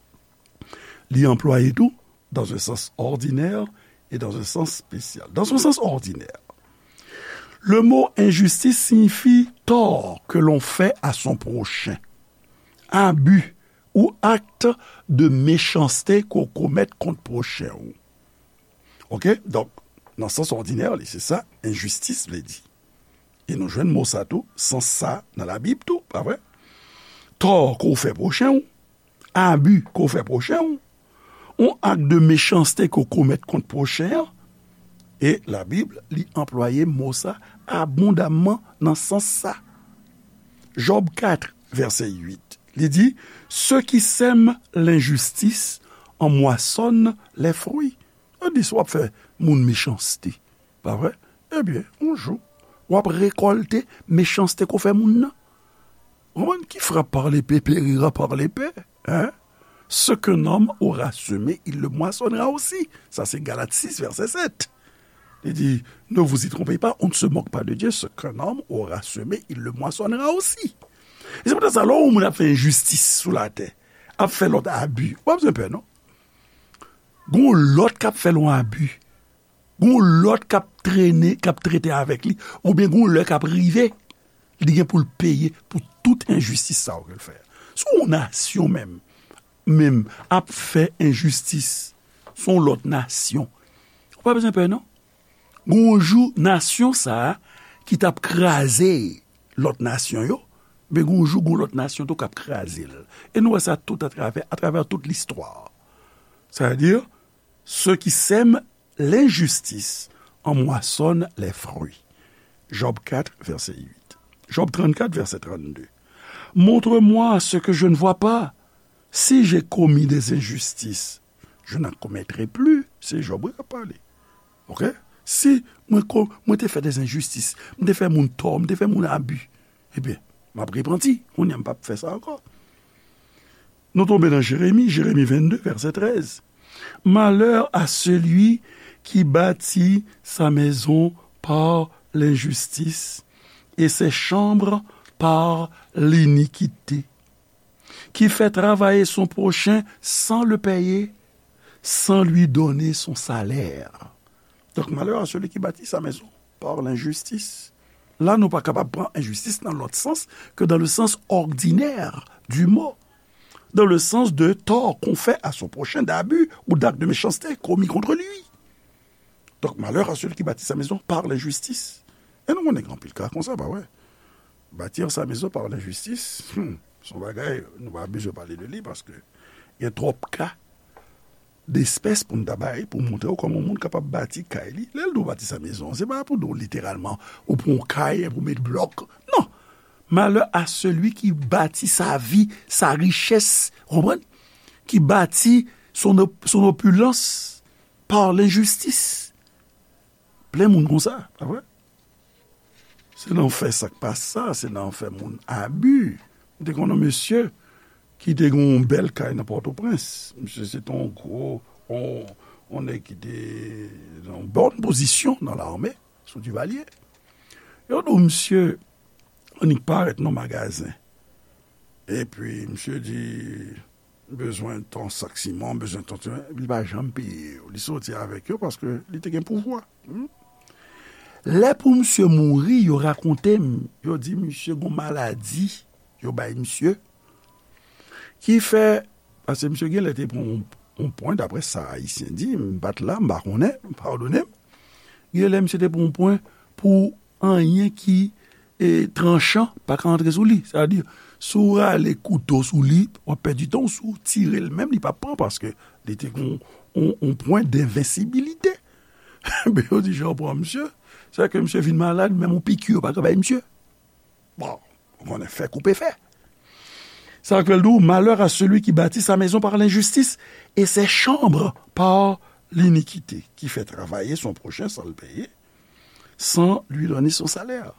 li anplwaye tou dans un sens ordinaire et dans un sens spécial. Dans un sens ordinaire, le mot injustice signifie tort que l'on fait à son prochain, abus ou acte de méchanceté qu'on commet contre prochain ou. Ok? Donk, nan sans ordinaire, li, se sa, enjistis vle di. E nou jwenn mo sa tou, sans sa nan Labib tou, pa vre? Tò ke w fè pwochen w, abi ke w fè pwochen w, yon ak de mechanste ke w komèt kont pwochen an, e Labib, li anplwaye mo sa abondamman nan sans sa. Jòb kat, vèsè uit, li di, ceux qui sèment l'injustice en moissonnent les fruits. Sa di, si w ap fè moun mechanste, pa vre? Ebyen, yon jou, w ap rekòlte mechanste ke w fè moun nan. Ou konprann? Qui frappe par l'épée périra par l'épée, hein? Ce qu'un homme aura semé, il le moissonnera aussi. Sa se Galat sis, vèsè sèt. Li di, ne vous y trompez pas, on ne se moque pas de Dieu, ce qu'un homme aura semé, il le moissonnera aussi. E se poutèt sa, lè w wè yon moun ap fè enjistis sou latè, ap fè lòt abi, w pa bezwen pè, non. Gon lòt k ap fè l yon abi. Gon lòt k ap trennen, k ap trete avèk li, oubyen gon lè k ap rive, li gen pou l peye pou tout enjistis sa yo ke l fè. Si yon nasyon menm, menm ap fè enjistis sou yon lòt nasyon, ou pa bezwen pè, non. Gon jou, nasyon sa a ki t ap kraze lòt nasyon yo, men gon jou, gon lòt nasyon tou k ap kraze l. E nou wè sa tout atravè, atravè tout listwa. Sa vle di, ceux qui sèment l'injustice en moissonnent les fruits. Job quatre, verset huit. Job trente-quatre, verset trente-deux. Montre-moi ce que je ne vois pas. Si j'ai commis des injustices, je n'en commettrai plus. Se Jòb wi k ap pale. Oke? Si mwen, ko- mwen te fè des injustices, mwen te fè moun tò, mwen te fè moun abi, ebyen, m ap repanti. Kounye a, m p ap fè sa ankò. Nou tonbe nan Jeremi, Jeremi vennde, vèsè trèz. Malheur à celui qui bâtit sa maison par l'injustice et ses chambres par l'iniquité, qui fait travailler son prochain sans le payer, sans lui donner son salaire. Donc, malheur à celui qui bâtit sa maison par l'injustice. La, nou pa kapab pran enjistis nan lòt sans ke dans le sens ordinaire du mot, dans le sens de tort qu'on fait à son prochain, d'abus ou d'actes de méchanceté commis contre lui. Donc, malheur à celui qui bâtit sa maison par l'injustice. E nou konnen gen anpil ka konsa, pa vre? Bâtir sa maison par l'injustice, hmm, se yon bagay, nou pa bezwen pale de li, paske gen twòp ka despès pou n ta bay, pou montre w kòman yon moun kapab bati kay li. Lè l di w bati sa maison, se pa pou di w literalman, ou pran yon kay, epi w met blòk. Non. Malheur à celui qui bâtit sa vie, sa richesse, ou konprann? Qui bâtit son op- son opulence par l'injustice. Plen moun konsa, pa vre? Se nan fè sa k pa sa, se nan fè moun abi. M te konn yon mesye ki te gen yon bèl kay nan Pòtoprens. Misye se te yon gwo, yon, yon nèg ki te nan yon bòn pozisyon nan lame, sou Divalye. Yo di w misye annik parèt nan magazen. Epi misye di, bezwen tan sak siman, bezwen tan, li pa janm peye yo. Li soti avèk yo paske li te gen pouvwa. Hmm? Lè pou misye mouri, yo rakonte m, yo di misye gon maladi, yo bay misye, ki fè, paske misye gen lè te pran yon, yon pwen, daprè sa Ayisyen di, m pa t la, m pa konnen, padone m. Gen lè misye te pran yon pwen pou anyen ki e, tranchan pa ka antre sou li. Sa vle di, si w rale kouto sou li, w ap pèdi tan w. Si w tire l menm, li p ap pran paske li te gen yon, yon, yon pwen denvensibilite. Men yo di, jan w pran misye, se ke misye vin malad, menm yon piki yo pa ka bay misye. Bon, ou konnen fè koupe fè. Sa k fè l di w, malheur à celui qui bâtit sa maison par l'injustice et ses chambres par l'iniquité, qui fait travailler son prochain sans le payer, sans lui donner son salaire.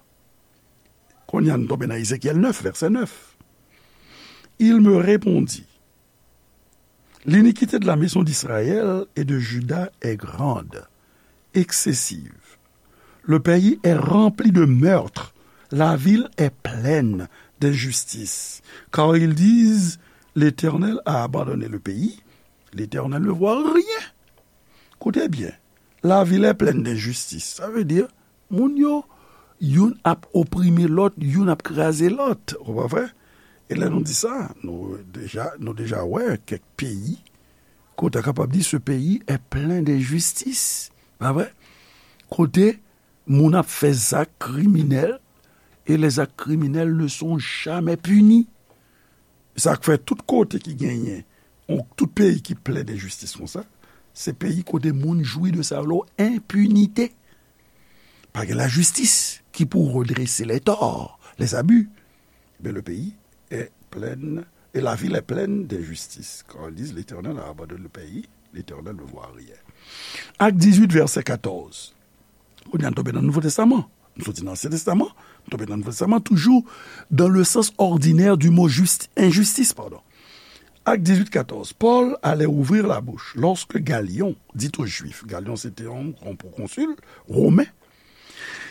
Kounye a, nou tonbe nan Ezekyèl nèf, vèsè nèf. Il me répondit, l'iniquité de la maison d'Israël et de Juda est grande, excessive. Le pays est rempli de meurtres, la ville est pleine d'injustice. Car ils disent, l'Éternel a abandonné le pays, l'Éternel ne voit rien. Koute byen, la ville est pleine d'injustice. Sa vle di, moun yo, youn ap oprime lòt, youn ap kraze lòt. Ou pa vre? E lè nou di sa, nou deja, nou deja wè kèk peyi kote a kapab di, ce pays est plein d'injustice. Pa vre? Kote moun ap fè zak kriminèl, et les actes criminels ne sont jamais punis. Sa k fè tout kote ki genyen, yon, tout peyi ki plen denjistis konsa, se peyi kote moun jwi de sa yo, enpinite. Pa gen lajistis ki pou redrese les torts, les abus. Mais le pays est plein, et la ville est pleine d'injustice. Quand ils disent, l'Éternel a abandonné le pays, l'Éternel ne voit rien. Acte dix-huit, verset quatorze. Kounye a, nou tonbe nan Nouvo Testaman. Nou soti nan Ansyen Testaman, nou tonbe nan Nouvo Testaman, toujours dans le sens ordinaire du mot juste, injustice, pardon. Acte dix-huit, quatorze. Paul allait ouvrir la bouche lorsque Galion dit aux Juifs, Galion se te yon, yon pwokonsil women,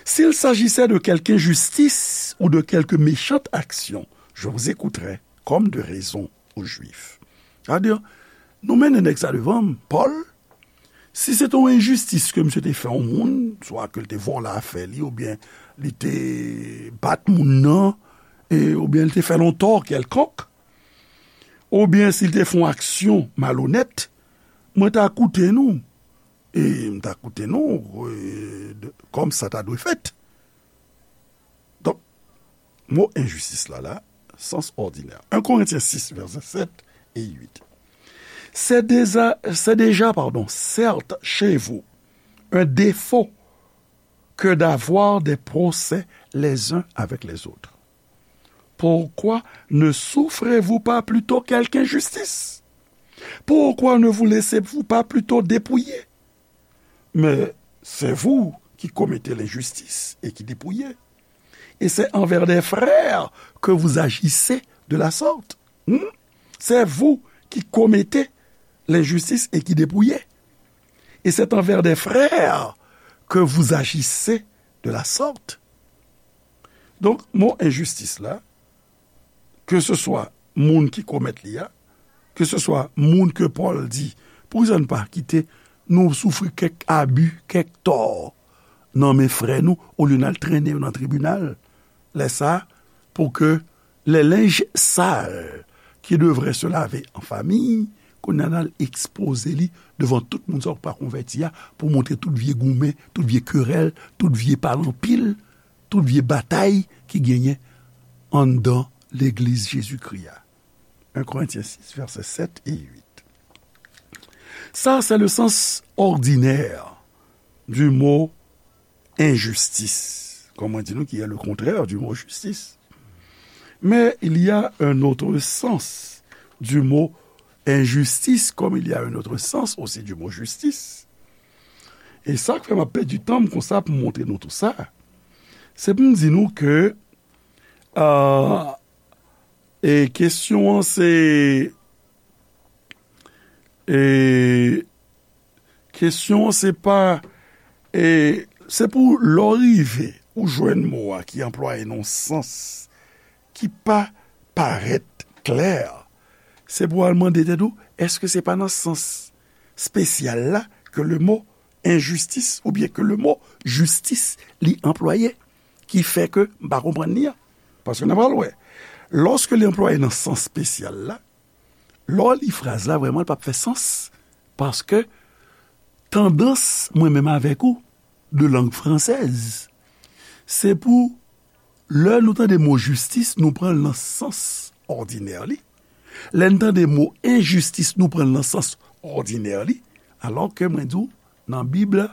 s'il s'agissait de quelque injustice ou de quelque méchante action, je vous écouterai comme de raison aux Juifs. Sa vle di, nou mennen nèg sa devan m, Pòl, si se te yon enjistis ke misye te fè yon moun, swa ke l te vòlè afè li, oubyen li te bat moun nan, e, oubyen li te fè l yon tò kèlkonk, oubyen si l te fè yon aksyon malonèt, mwen ta koute nou, e m ta koute nou, e, de, kòm sa ta dwe fèt. Donk, mo enjistis la, la, sens ordinaire. Un Corinthiens six, versets sept et huit. C'est déjà, c'est déjà, pardon, certes chez vous, un défaut que d'avoir des procès les uns avec les autres. Pourquoi ne souffrez-vous pas plutôt quelque injustice? Pourquoi ne vous laissez-vous pas plutôt dépouiller? Mais c'est vous qui commettez l'injustice et qui dépouillez. Et c'est envers des frères que vous agissez de la sorte. Hmm? C'est vous qui commettez l'injustice et qui dépouillez. Et c'est envers des frères que vous agissez de la sorte. Donk, mo enjistis la, ke se swa moun ki komèt li a, ke se swa moun ke Pòl di, poukisa n pa kite nou soufri kèk abi, kèk tò nan men frè nou, olye n al trennen yo nan tribinal? Lè sa a, pou ke les linges sales qui devraient se laver en famille, kounye a n al ekspoze li devan tout moun sa yo k pa konvèti a, pou montre tout vye goumen, tout vye kerèl, tout vye pale anpil, tout vye batay ki genyen anndan legliz Jezikri a. Un Corinthiens six, versets sept et huit. Ça, c'est le sens ordinaire du mot injustice, comme on dit nous, qui est le contraire du mot justice. Mais il y a un autre sens du mot injustice, comme il y a un autre sens aussi du mot justice. E sa k fè m ap pèdi tan m konsa pou m montre nou tou sa, se pou m di nou ke, euh, e kesyon an se, e kesyon an se pa, e se pou lè w rive ou jwenn mo a ki anplwaye nan yon sans ki pa parèt klè, se pou w al mande tèt ou, èske se pa nan sans espesyal la ke le mot injustice oubyen ke le mot justice li anplwaye, ki fè ke m pa konprann li an? Paske n ap pral wè, lòske li anplwaye nan sans espesyal la, lè w li fraz la, vrèman, li p ap fè sans. Paske tandans, mwen menm avèk ou, de langue française, se pou lè nou tande mo jistis, nou pran l nan sans òdinè li. Lè n tande mo enjistis, nou pran l nan sans òdinè li. Alò ke mwen di w, nan Bib la,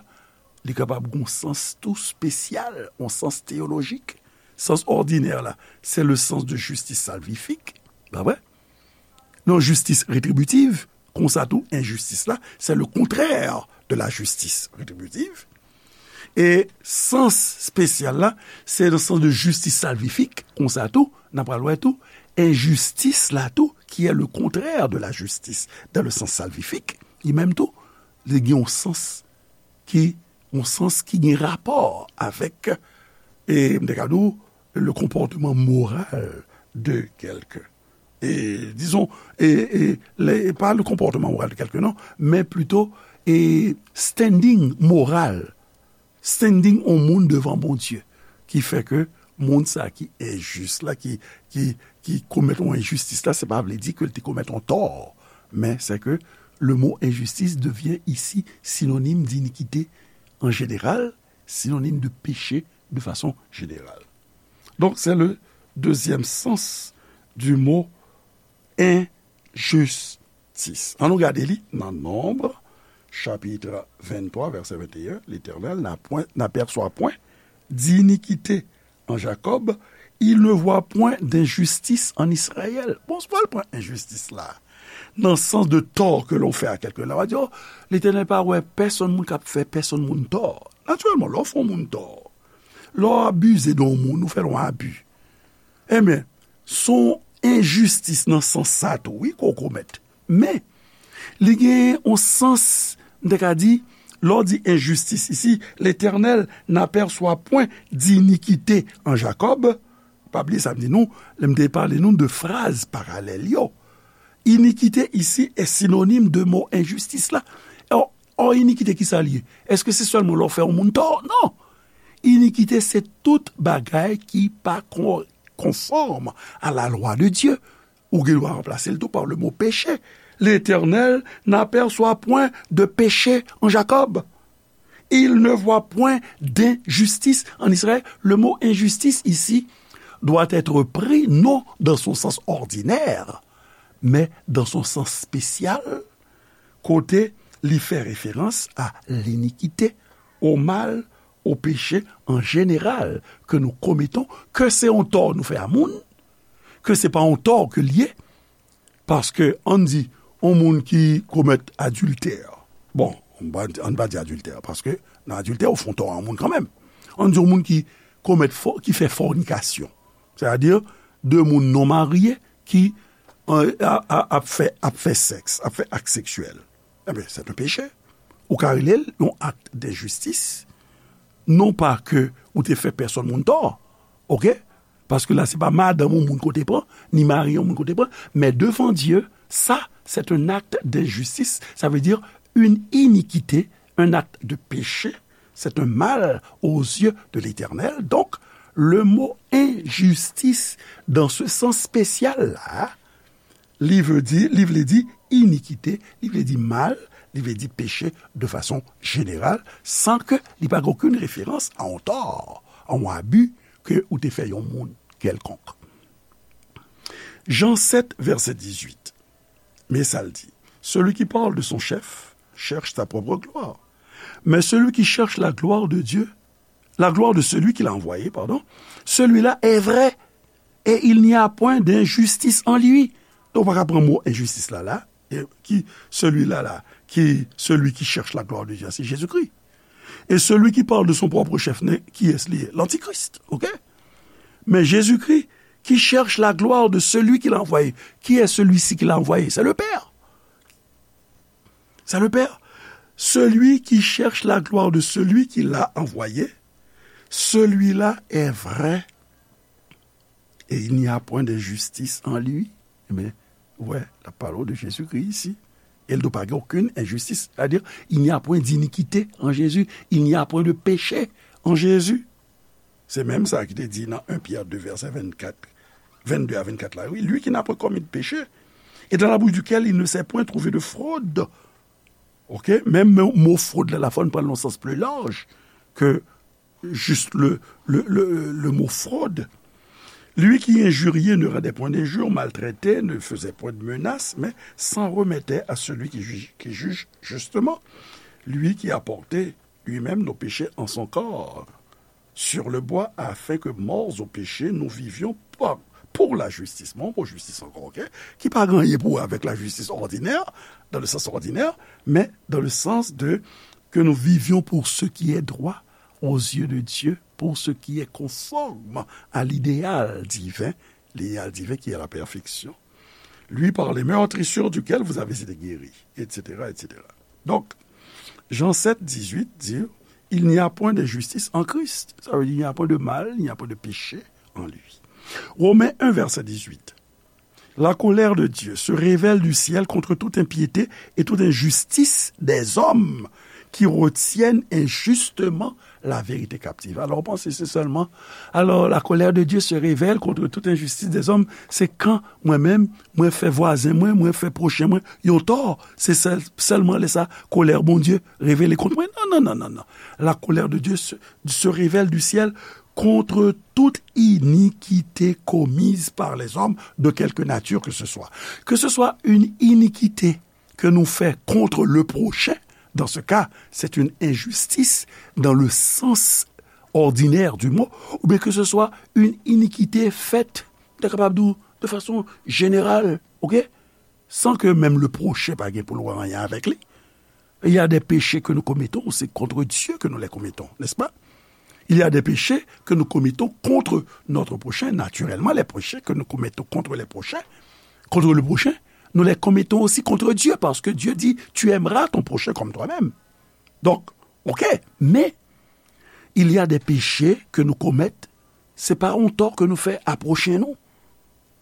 li kapab gen yon sans tou espesyal, yon sans teyolojik. Sans òdinè la, c'est le sens de justice salvifique, pa vre? Non, justice rétributive, konsa tou, enjistis la, c'est le contraire de la justice rétributive. E sans espesyal la, se nan sans de justice salvifique, konsa tou, n ap pral wè tou, enjistis la tou, qui est le contraire de la justice, dans le sens salvifique, li menm tou, li gen yon sans ki, yon sans ki gen rapò avèk, e, m te ka di w, le comportement moral de quelqu'un. E, dizon, e, e, le, pa le comportement moral de quelqu'un, non, men plito, e, standing moral, standing yon moun devan Bondye, ki fè ke moun sa ki enjis la, ki, ki, ki komèt yon enjistis la, se pa vle di ke l te komèt yon tò, men se ke le mot injustice devient ici synonyme d'iniquité en général, synonyme de péché de façon générale. Donc, c'est le deuxième sens du mot injustice. An nou gade li nan Nonb, chapit venntwa, vèsè venteyen, Letènèl n'a point, n'aperçoit point d'iniquité en Jacob, il ne voit point d'injustice en Israël. Bon, se pa l pran enjistis la nan sans de tort que l'on fait à quelqu'un. La, w a di, oh, Letènèl pa wè pèsonn moun k ap fè pèsonn moun tò. Natirèlman, lè w fè yon moun tò, lè w abize de yon moun, ou fè l yon abi, enben, se yon enjistis nan sans sa tou, wi, ke w komèt. Men, li gen yon sans, m te ka di, lè w di enjistis isi, Letènèl n'aperçoit point d'iniquité en Jacob. Pa bliye sa m di nou, lè m te pale nou de fraz paralèl yo. Iniquité ici est synonyme de mo enjistis la. Or, or, inikite, ki sa l ye? Èske se sèlman lè w fè yon moun tò? Non! Inikite, se tout bagay ki pa kon-, konfòm à la loi de Dieu. Ou gen dwa ranplase l tou pa le mo péché. L'Éternel n'aperçoit point de péché en Jacob. Il ne voit point d'injustice en Israël. Le mot injustice ici doit être pris non dans son sens ordinaire, mais dans son sens spécial, kote li fè referans a linikite, o mal, o peche an jeneral ke nou kometon, ke se yon tò nou fè a moun, ke se pa yon tò ke l ye, paske, ann di, yon moun ki komèt adiltè, bon, ann pa, ann pa di adiltè, paske nan adiltè, ou fè yon tò a yon moun kanmenm. Ann di, yon moun ki komèt fò, ki fè fònikasyon, sètadi de moun non marye ki, euh, a, a, ap fè, ap fè sèks, ap fè ak seksyèl. Ebyen, se yon peche. Ou ka rele l yon ak denjistis. Non pa ke ou te fè pèsonn moun tò, oke? Paske la, se pa madanm yon moun ke w te pran, ni mari yon moun ke w te pran, men devan Dye, sa, se yon ak denjistis, sa vle di yon inikite, yon ak de peche, se yon mal aux yeux de l'Éternel. Donk, le mo enjistis, dans ce sens spécial-là, li vle di, li vle di inikite, li vle di mal, li vle di peche de fason jeneral, san ke li pa gen okenn referans a yon tò, a yon abi ke ou te fè yon moun kèlkonk. Jan sèt, vèsè dizuit. Men sa l di, celui qui parle de son chef cherche sa propre gloire. Mais celui qui cherche la gloire de Dieu, la gloire de celui qui l'a envoyé, pardon, celui-là est vrai, et il n'y a point d'injustice en lui. Donk, ou pa ka pran mo enjistis la, la, e ki celui-là, la, ki celui qui cherche la gloire de Dieu, c'est Jésus-Christ. Et celui qui parle de son propre chef, ne, qui est-ce li ye? L'antichrist, ok? Mais Jésus-Christ, qui cherche la gloire de celui qui l'a envoyé. Qui est celui-ci qui l'a envoyé? C'est le Père. C'est le Père. Celui qui cherche la gloire de celui qui l'a envoyé, celui-là est vrai. Et il n'y a point d'injustice en lui. Ebyen, ou wè, l ap pale w de Jezikri isi. E l di w pa gen okenn enjistis. Sètadi, il n'y a point d'iniquité en Jésus. Il n'y a point de péché en Jésus. Se menm sa ki te di nan en Pyè de vèsè vennkat, vennde a vennkat la, wi. Lui qui n'a point commis de péché, et dans la bouche duquel il ne s'est point trouvé de fraude. Ok? Menm mo, mo frod la, la fò n pran l nan sans pli laj ke juste le, le, le, le mot fraude. Lui qui injuriait ne rendait point d'injure, maltraitait, ne faisait point de menace, mais s'en remettait à celui qui juge, qui juge justement. Lui qui a porté lui-même nos péchés en son corps sur le bois, afin que morts au péché, nous vivions par, pour la justice. Bon, pou jistis ankò, ok? Ki pa gen anyen pou wè avèk la justice ordinaire, dans le sens ordinaire, mais dans le sens de que nous vivions pour ce qui est droit aux yeux de Dieu, pour ce qui est conforme à l'idéal divin, l'idéal divin qui est la perfection. Lui par les meurtrissures duquel vous avez été guéris, et cetera, et cetera. Donc, Jean sept, dix-huit dit, il n'y a point d'injustice en Christ. Ça veut dire, il n'y a point de mal, il n'y a point de péché en lui. Romains un, verset dix-huit. La colère de Dieu se révèle du ciel contre toute impiété et toute injustice des hommes qui retiennent injustement la vérité captive. Alors, ou panse se sèlman, alors, la colère de Dieu se révèle contre toute injustice des hommes, se kan mwen menm, mwen fè vwazen mwen, mwen fè pwochen mwen yon tò, se sèl, sèlman lè sa, kolè Bondye revele kont mwen? Non, non, non, non, non. La colère de Dieu se, se révèle du ciel contre toute iniquité commise par les hommes de quelque nature que ce soit. Que ce soit une iniquité ke nou fè contre le prochain, dans ce cas, c'est une injustice dans le sens ordinaire du mot, oubyen ke se swa yon inikite fèt, nou ta kapab di w, de fason jeneral, ok? San ke menm le prochain pa gen pou l wè anyen avèk li. Il y a des péchés que nous commettons, c'est contre Dieu que nous les commettons, n'est-ce pas? Il y a des péchés que nous commettons contre notre prochain. Naturellement, les péchés que nous commettons contre les prochains, contre le prochain, nous les commettons aussi contre Dieu, parce que Dieu dit, tu aimeras ton prochain comme toi-même. Donc, ok, mais il y a des péchés que nous commettons, se pa yon tò ke nou fè a pwochen nou.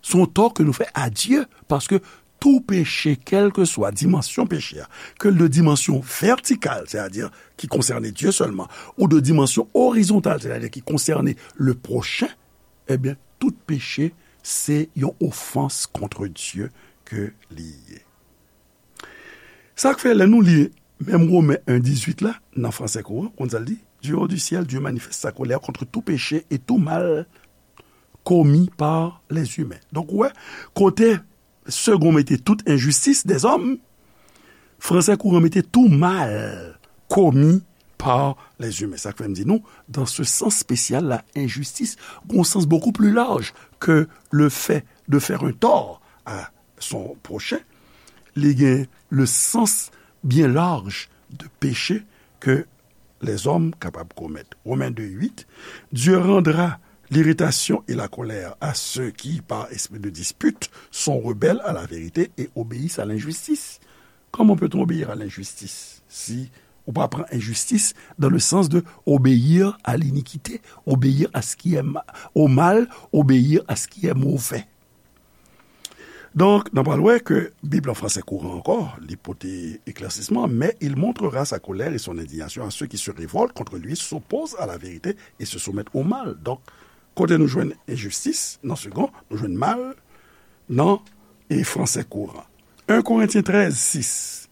Se yon tò ke nou fè a Dye, paske tou peche, kèlkeswa dimansyon peche a, ke l de dimansyon vètikal, sètadi ki konsène Dye sèlman, ou de dimansyon orizontal, sètadi ki konsène le prochen, ebyen, tout peche se yon ofans kont Dye ke li ye. Sa k fè, lè nou li menm Women en dizuit la, nan fransè kouran, konn sa l di, Du haut du ciel, Dieu manifeste sa colère contre tout péché et tout mal commis par les humains. Donk, ou wè, kote Segond mete tout enjistis dèzòm, fransè kouran mete tout mal commis par les humains. Sa k fè m di nou, dans ce sens spécial la, enjistis gon sans beaucoup plus large que le fait de faire un tort à son prochain, li gen le sens bien large de péché que les hommes kapab komèt. Romains deux huit, Dieu rendra l'irritation et la colère à ceux qui, par esprit de dispute, sont rebelles à la vérité et obéissent à l'injustice. Comment peut-on obéir à l'injustice si ou pa pran enjistis dans le sens de obéir à l'iniquité, obéir à ce qui est ma- au mal, obéir à ce qui est mauvais? Donk, n ap wè ke Bib an fransè kouran ankò, li pote eklèsisman, mais il montrera sa colère et son indignation à ceux qui se révoltent contre lui, s'opposent à la vérité et se soumettent au mal. Donk, kote nou jwenn enjistis nan segon, nou jwenn mal nan e fransè kouran. un Korentyen trèz sis,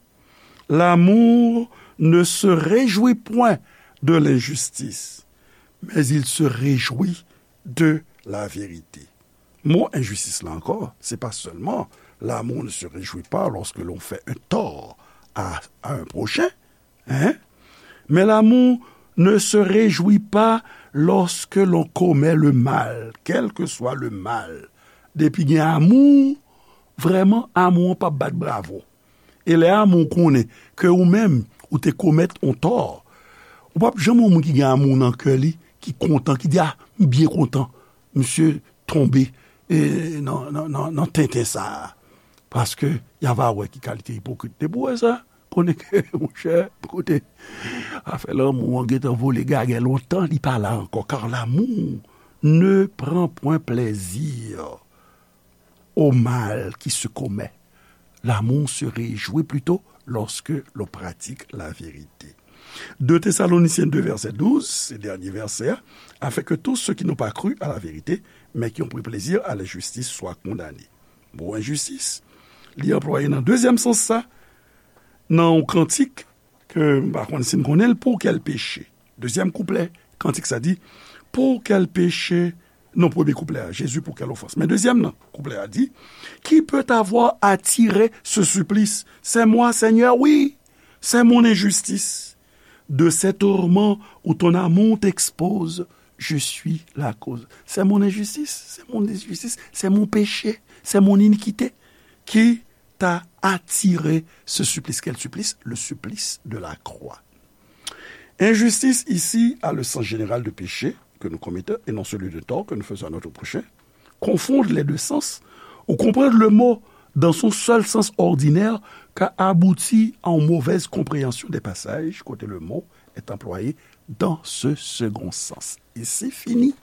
L'amour ne se réjouit point de l'injustice, mais il se réjouit de la vérité. Mo enjistis la ankò, se pa sèlman l'amour ne se réjouit pas lorsque l'on fait un tort à, à un prochain, hein? Mais l'amour ne se réjouit pas lorsque l'on commet le mal, quel que soit le mal. Depi gen amou, vrèman, amou an p ap bat bravo. E lè amou konnen ke ou menm, ou te komèt yon tò, ou p ap janm wè yon moun ki gen amou nan kè li, ki kontan, ki di, "A, m byen kontan, misye tonbe e, nan, nan, nan, nan tenten sa a." Paske y a va wè ki kalite ipokrit. Depi w wè sa, konnen ke, monchè, kote, afè lanmou an gentan vole gagè lontan, li pa la ankò. Car l'amour ne prend point plaisir au mal qui se commet. L'amour se réjouit plutôt lorsque l'on pratique la vérité. deux Thessaloniciens deux, verset douze, se dènye vèsè a, afin que tous ceux qui n'ont pas cru à la vérité, mais qui ont pris plaisir à l'injustice, soient condamnés. Mo enjistis, li anplwaye nan dezyèm sans sa, nan yon kantik ke m pa konn si n konnen l, Pour quel péché? Dezyèm kouplè, kantik sa di, Pour quel péché? Non, premye kouplè a, Jésus, pour quelle offense? Men dezyèm nan, kouplè a di, Qui peut avoir attiré ce supplice? C'est moi, Seigneur, oui, c'est mon injustice. De ces tourments où ton amour t'expose, je suis la cause. C'est mon injustice, c'est mon injustice, c'est mon péché, c'est mon iniquité qui t'a attiré ce supplice. Quel supplice? Le supplice de la croix. Injustice ici a le sens général de péché que nous commettons et non celui de tort que nous faisons à notre prochain. Confondre les deux sens ou comprendre le mot dans son seul sens ordinaire ka abouti à une mauvaise compréhension des passages kote le mot est employé dans ce second sens. Et c'est fini.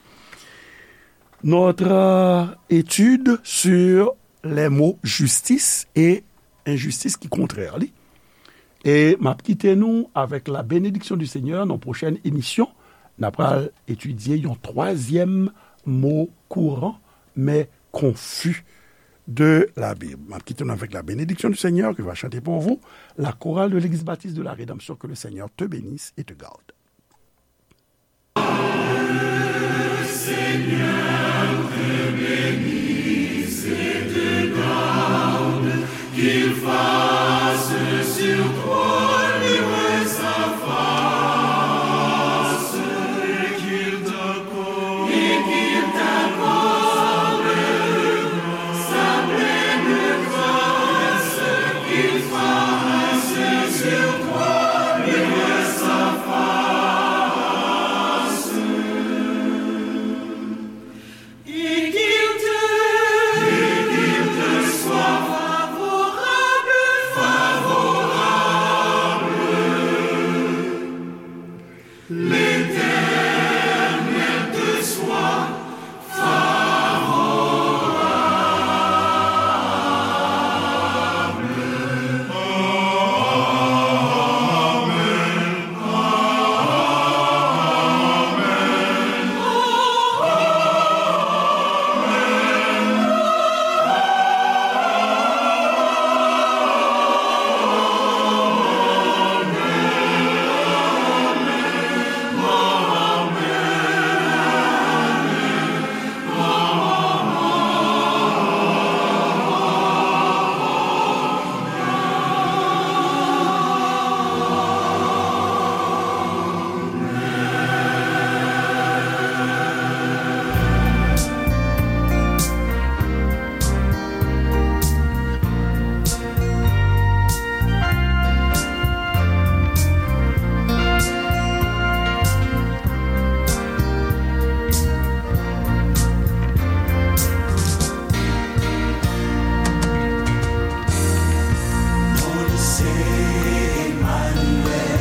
Notre euh, étude sur les mots justice et injustice ki kontrè li. E m ap kite nou avèk la bénédiction du Seigneur nan pwochèn emisyon. N ap pral etidye yon twazyèm mo kouran, men konfi de la Bible. M ap kite nou avèk la bénédiction du Seigneur qui va chanter pour vous la chorale de l'Église Baptiste de la Rédemption. Que le Seigneur te bénisse et te garde.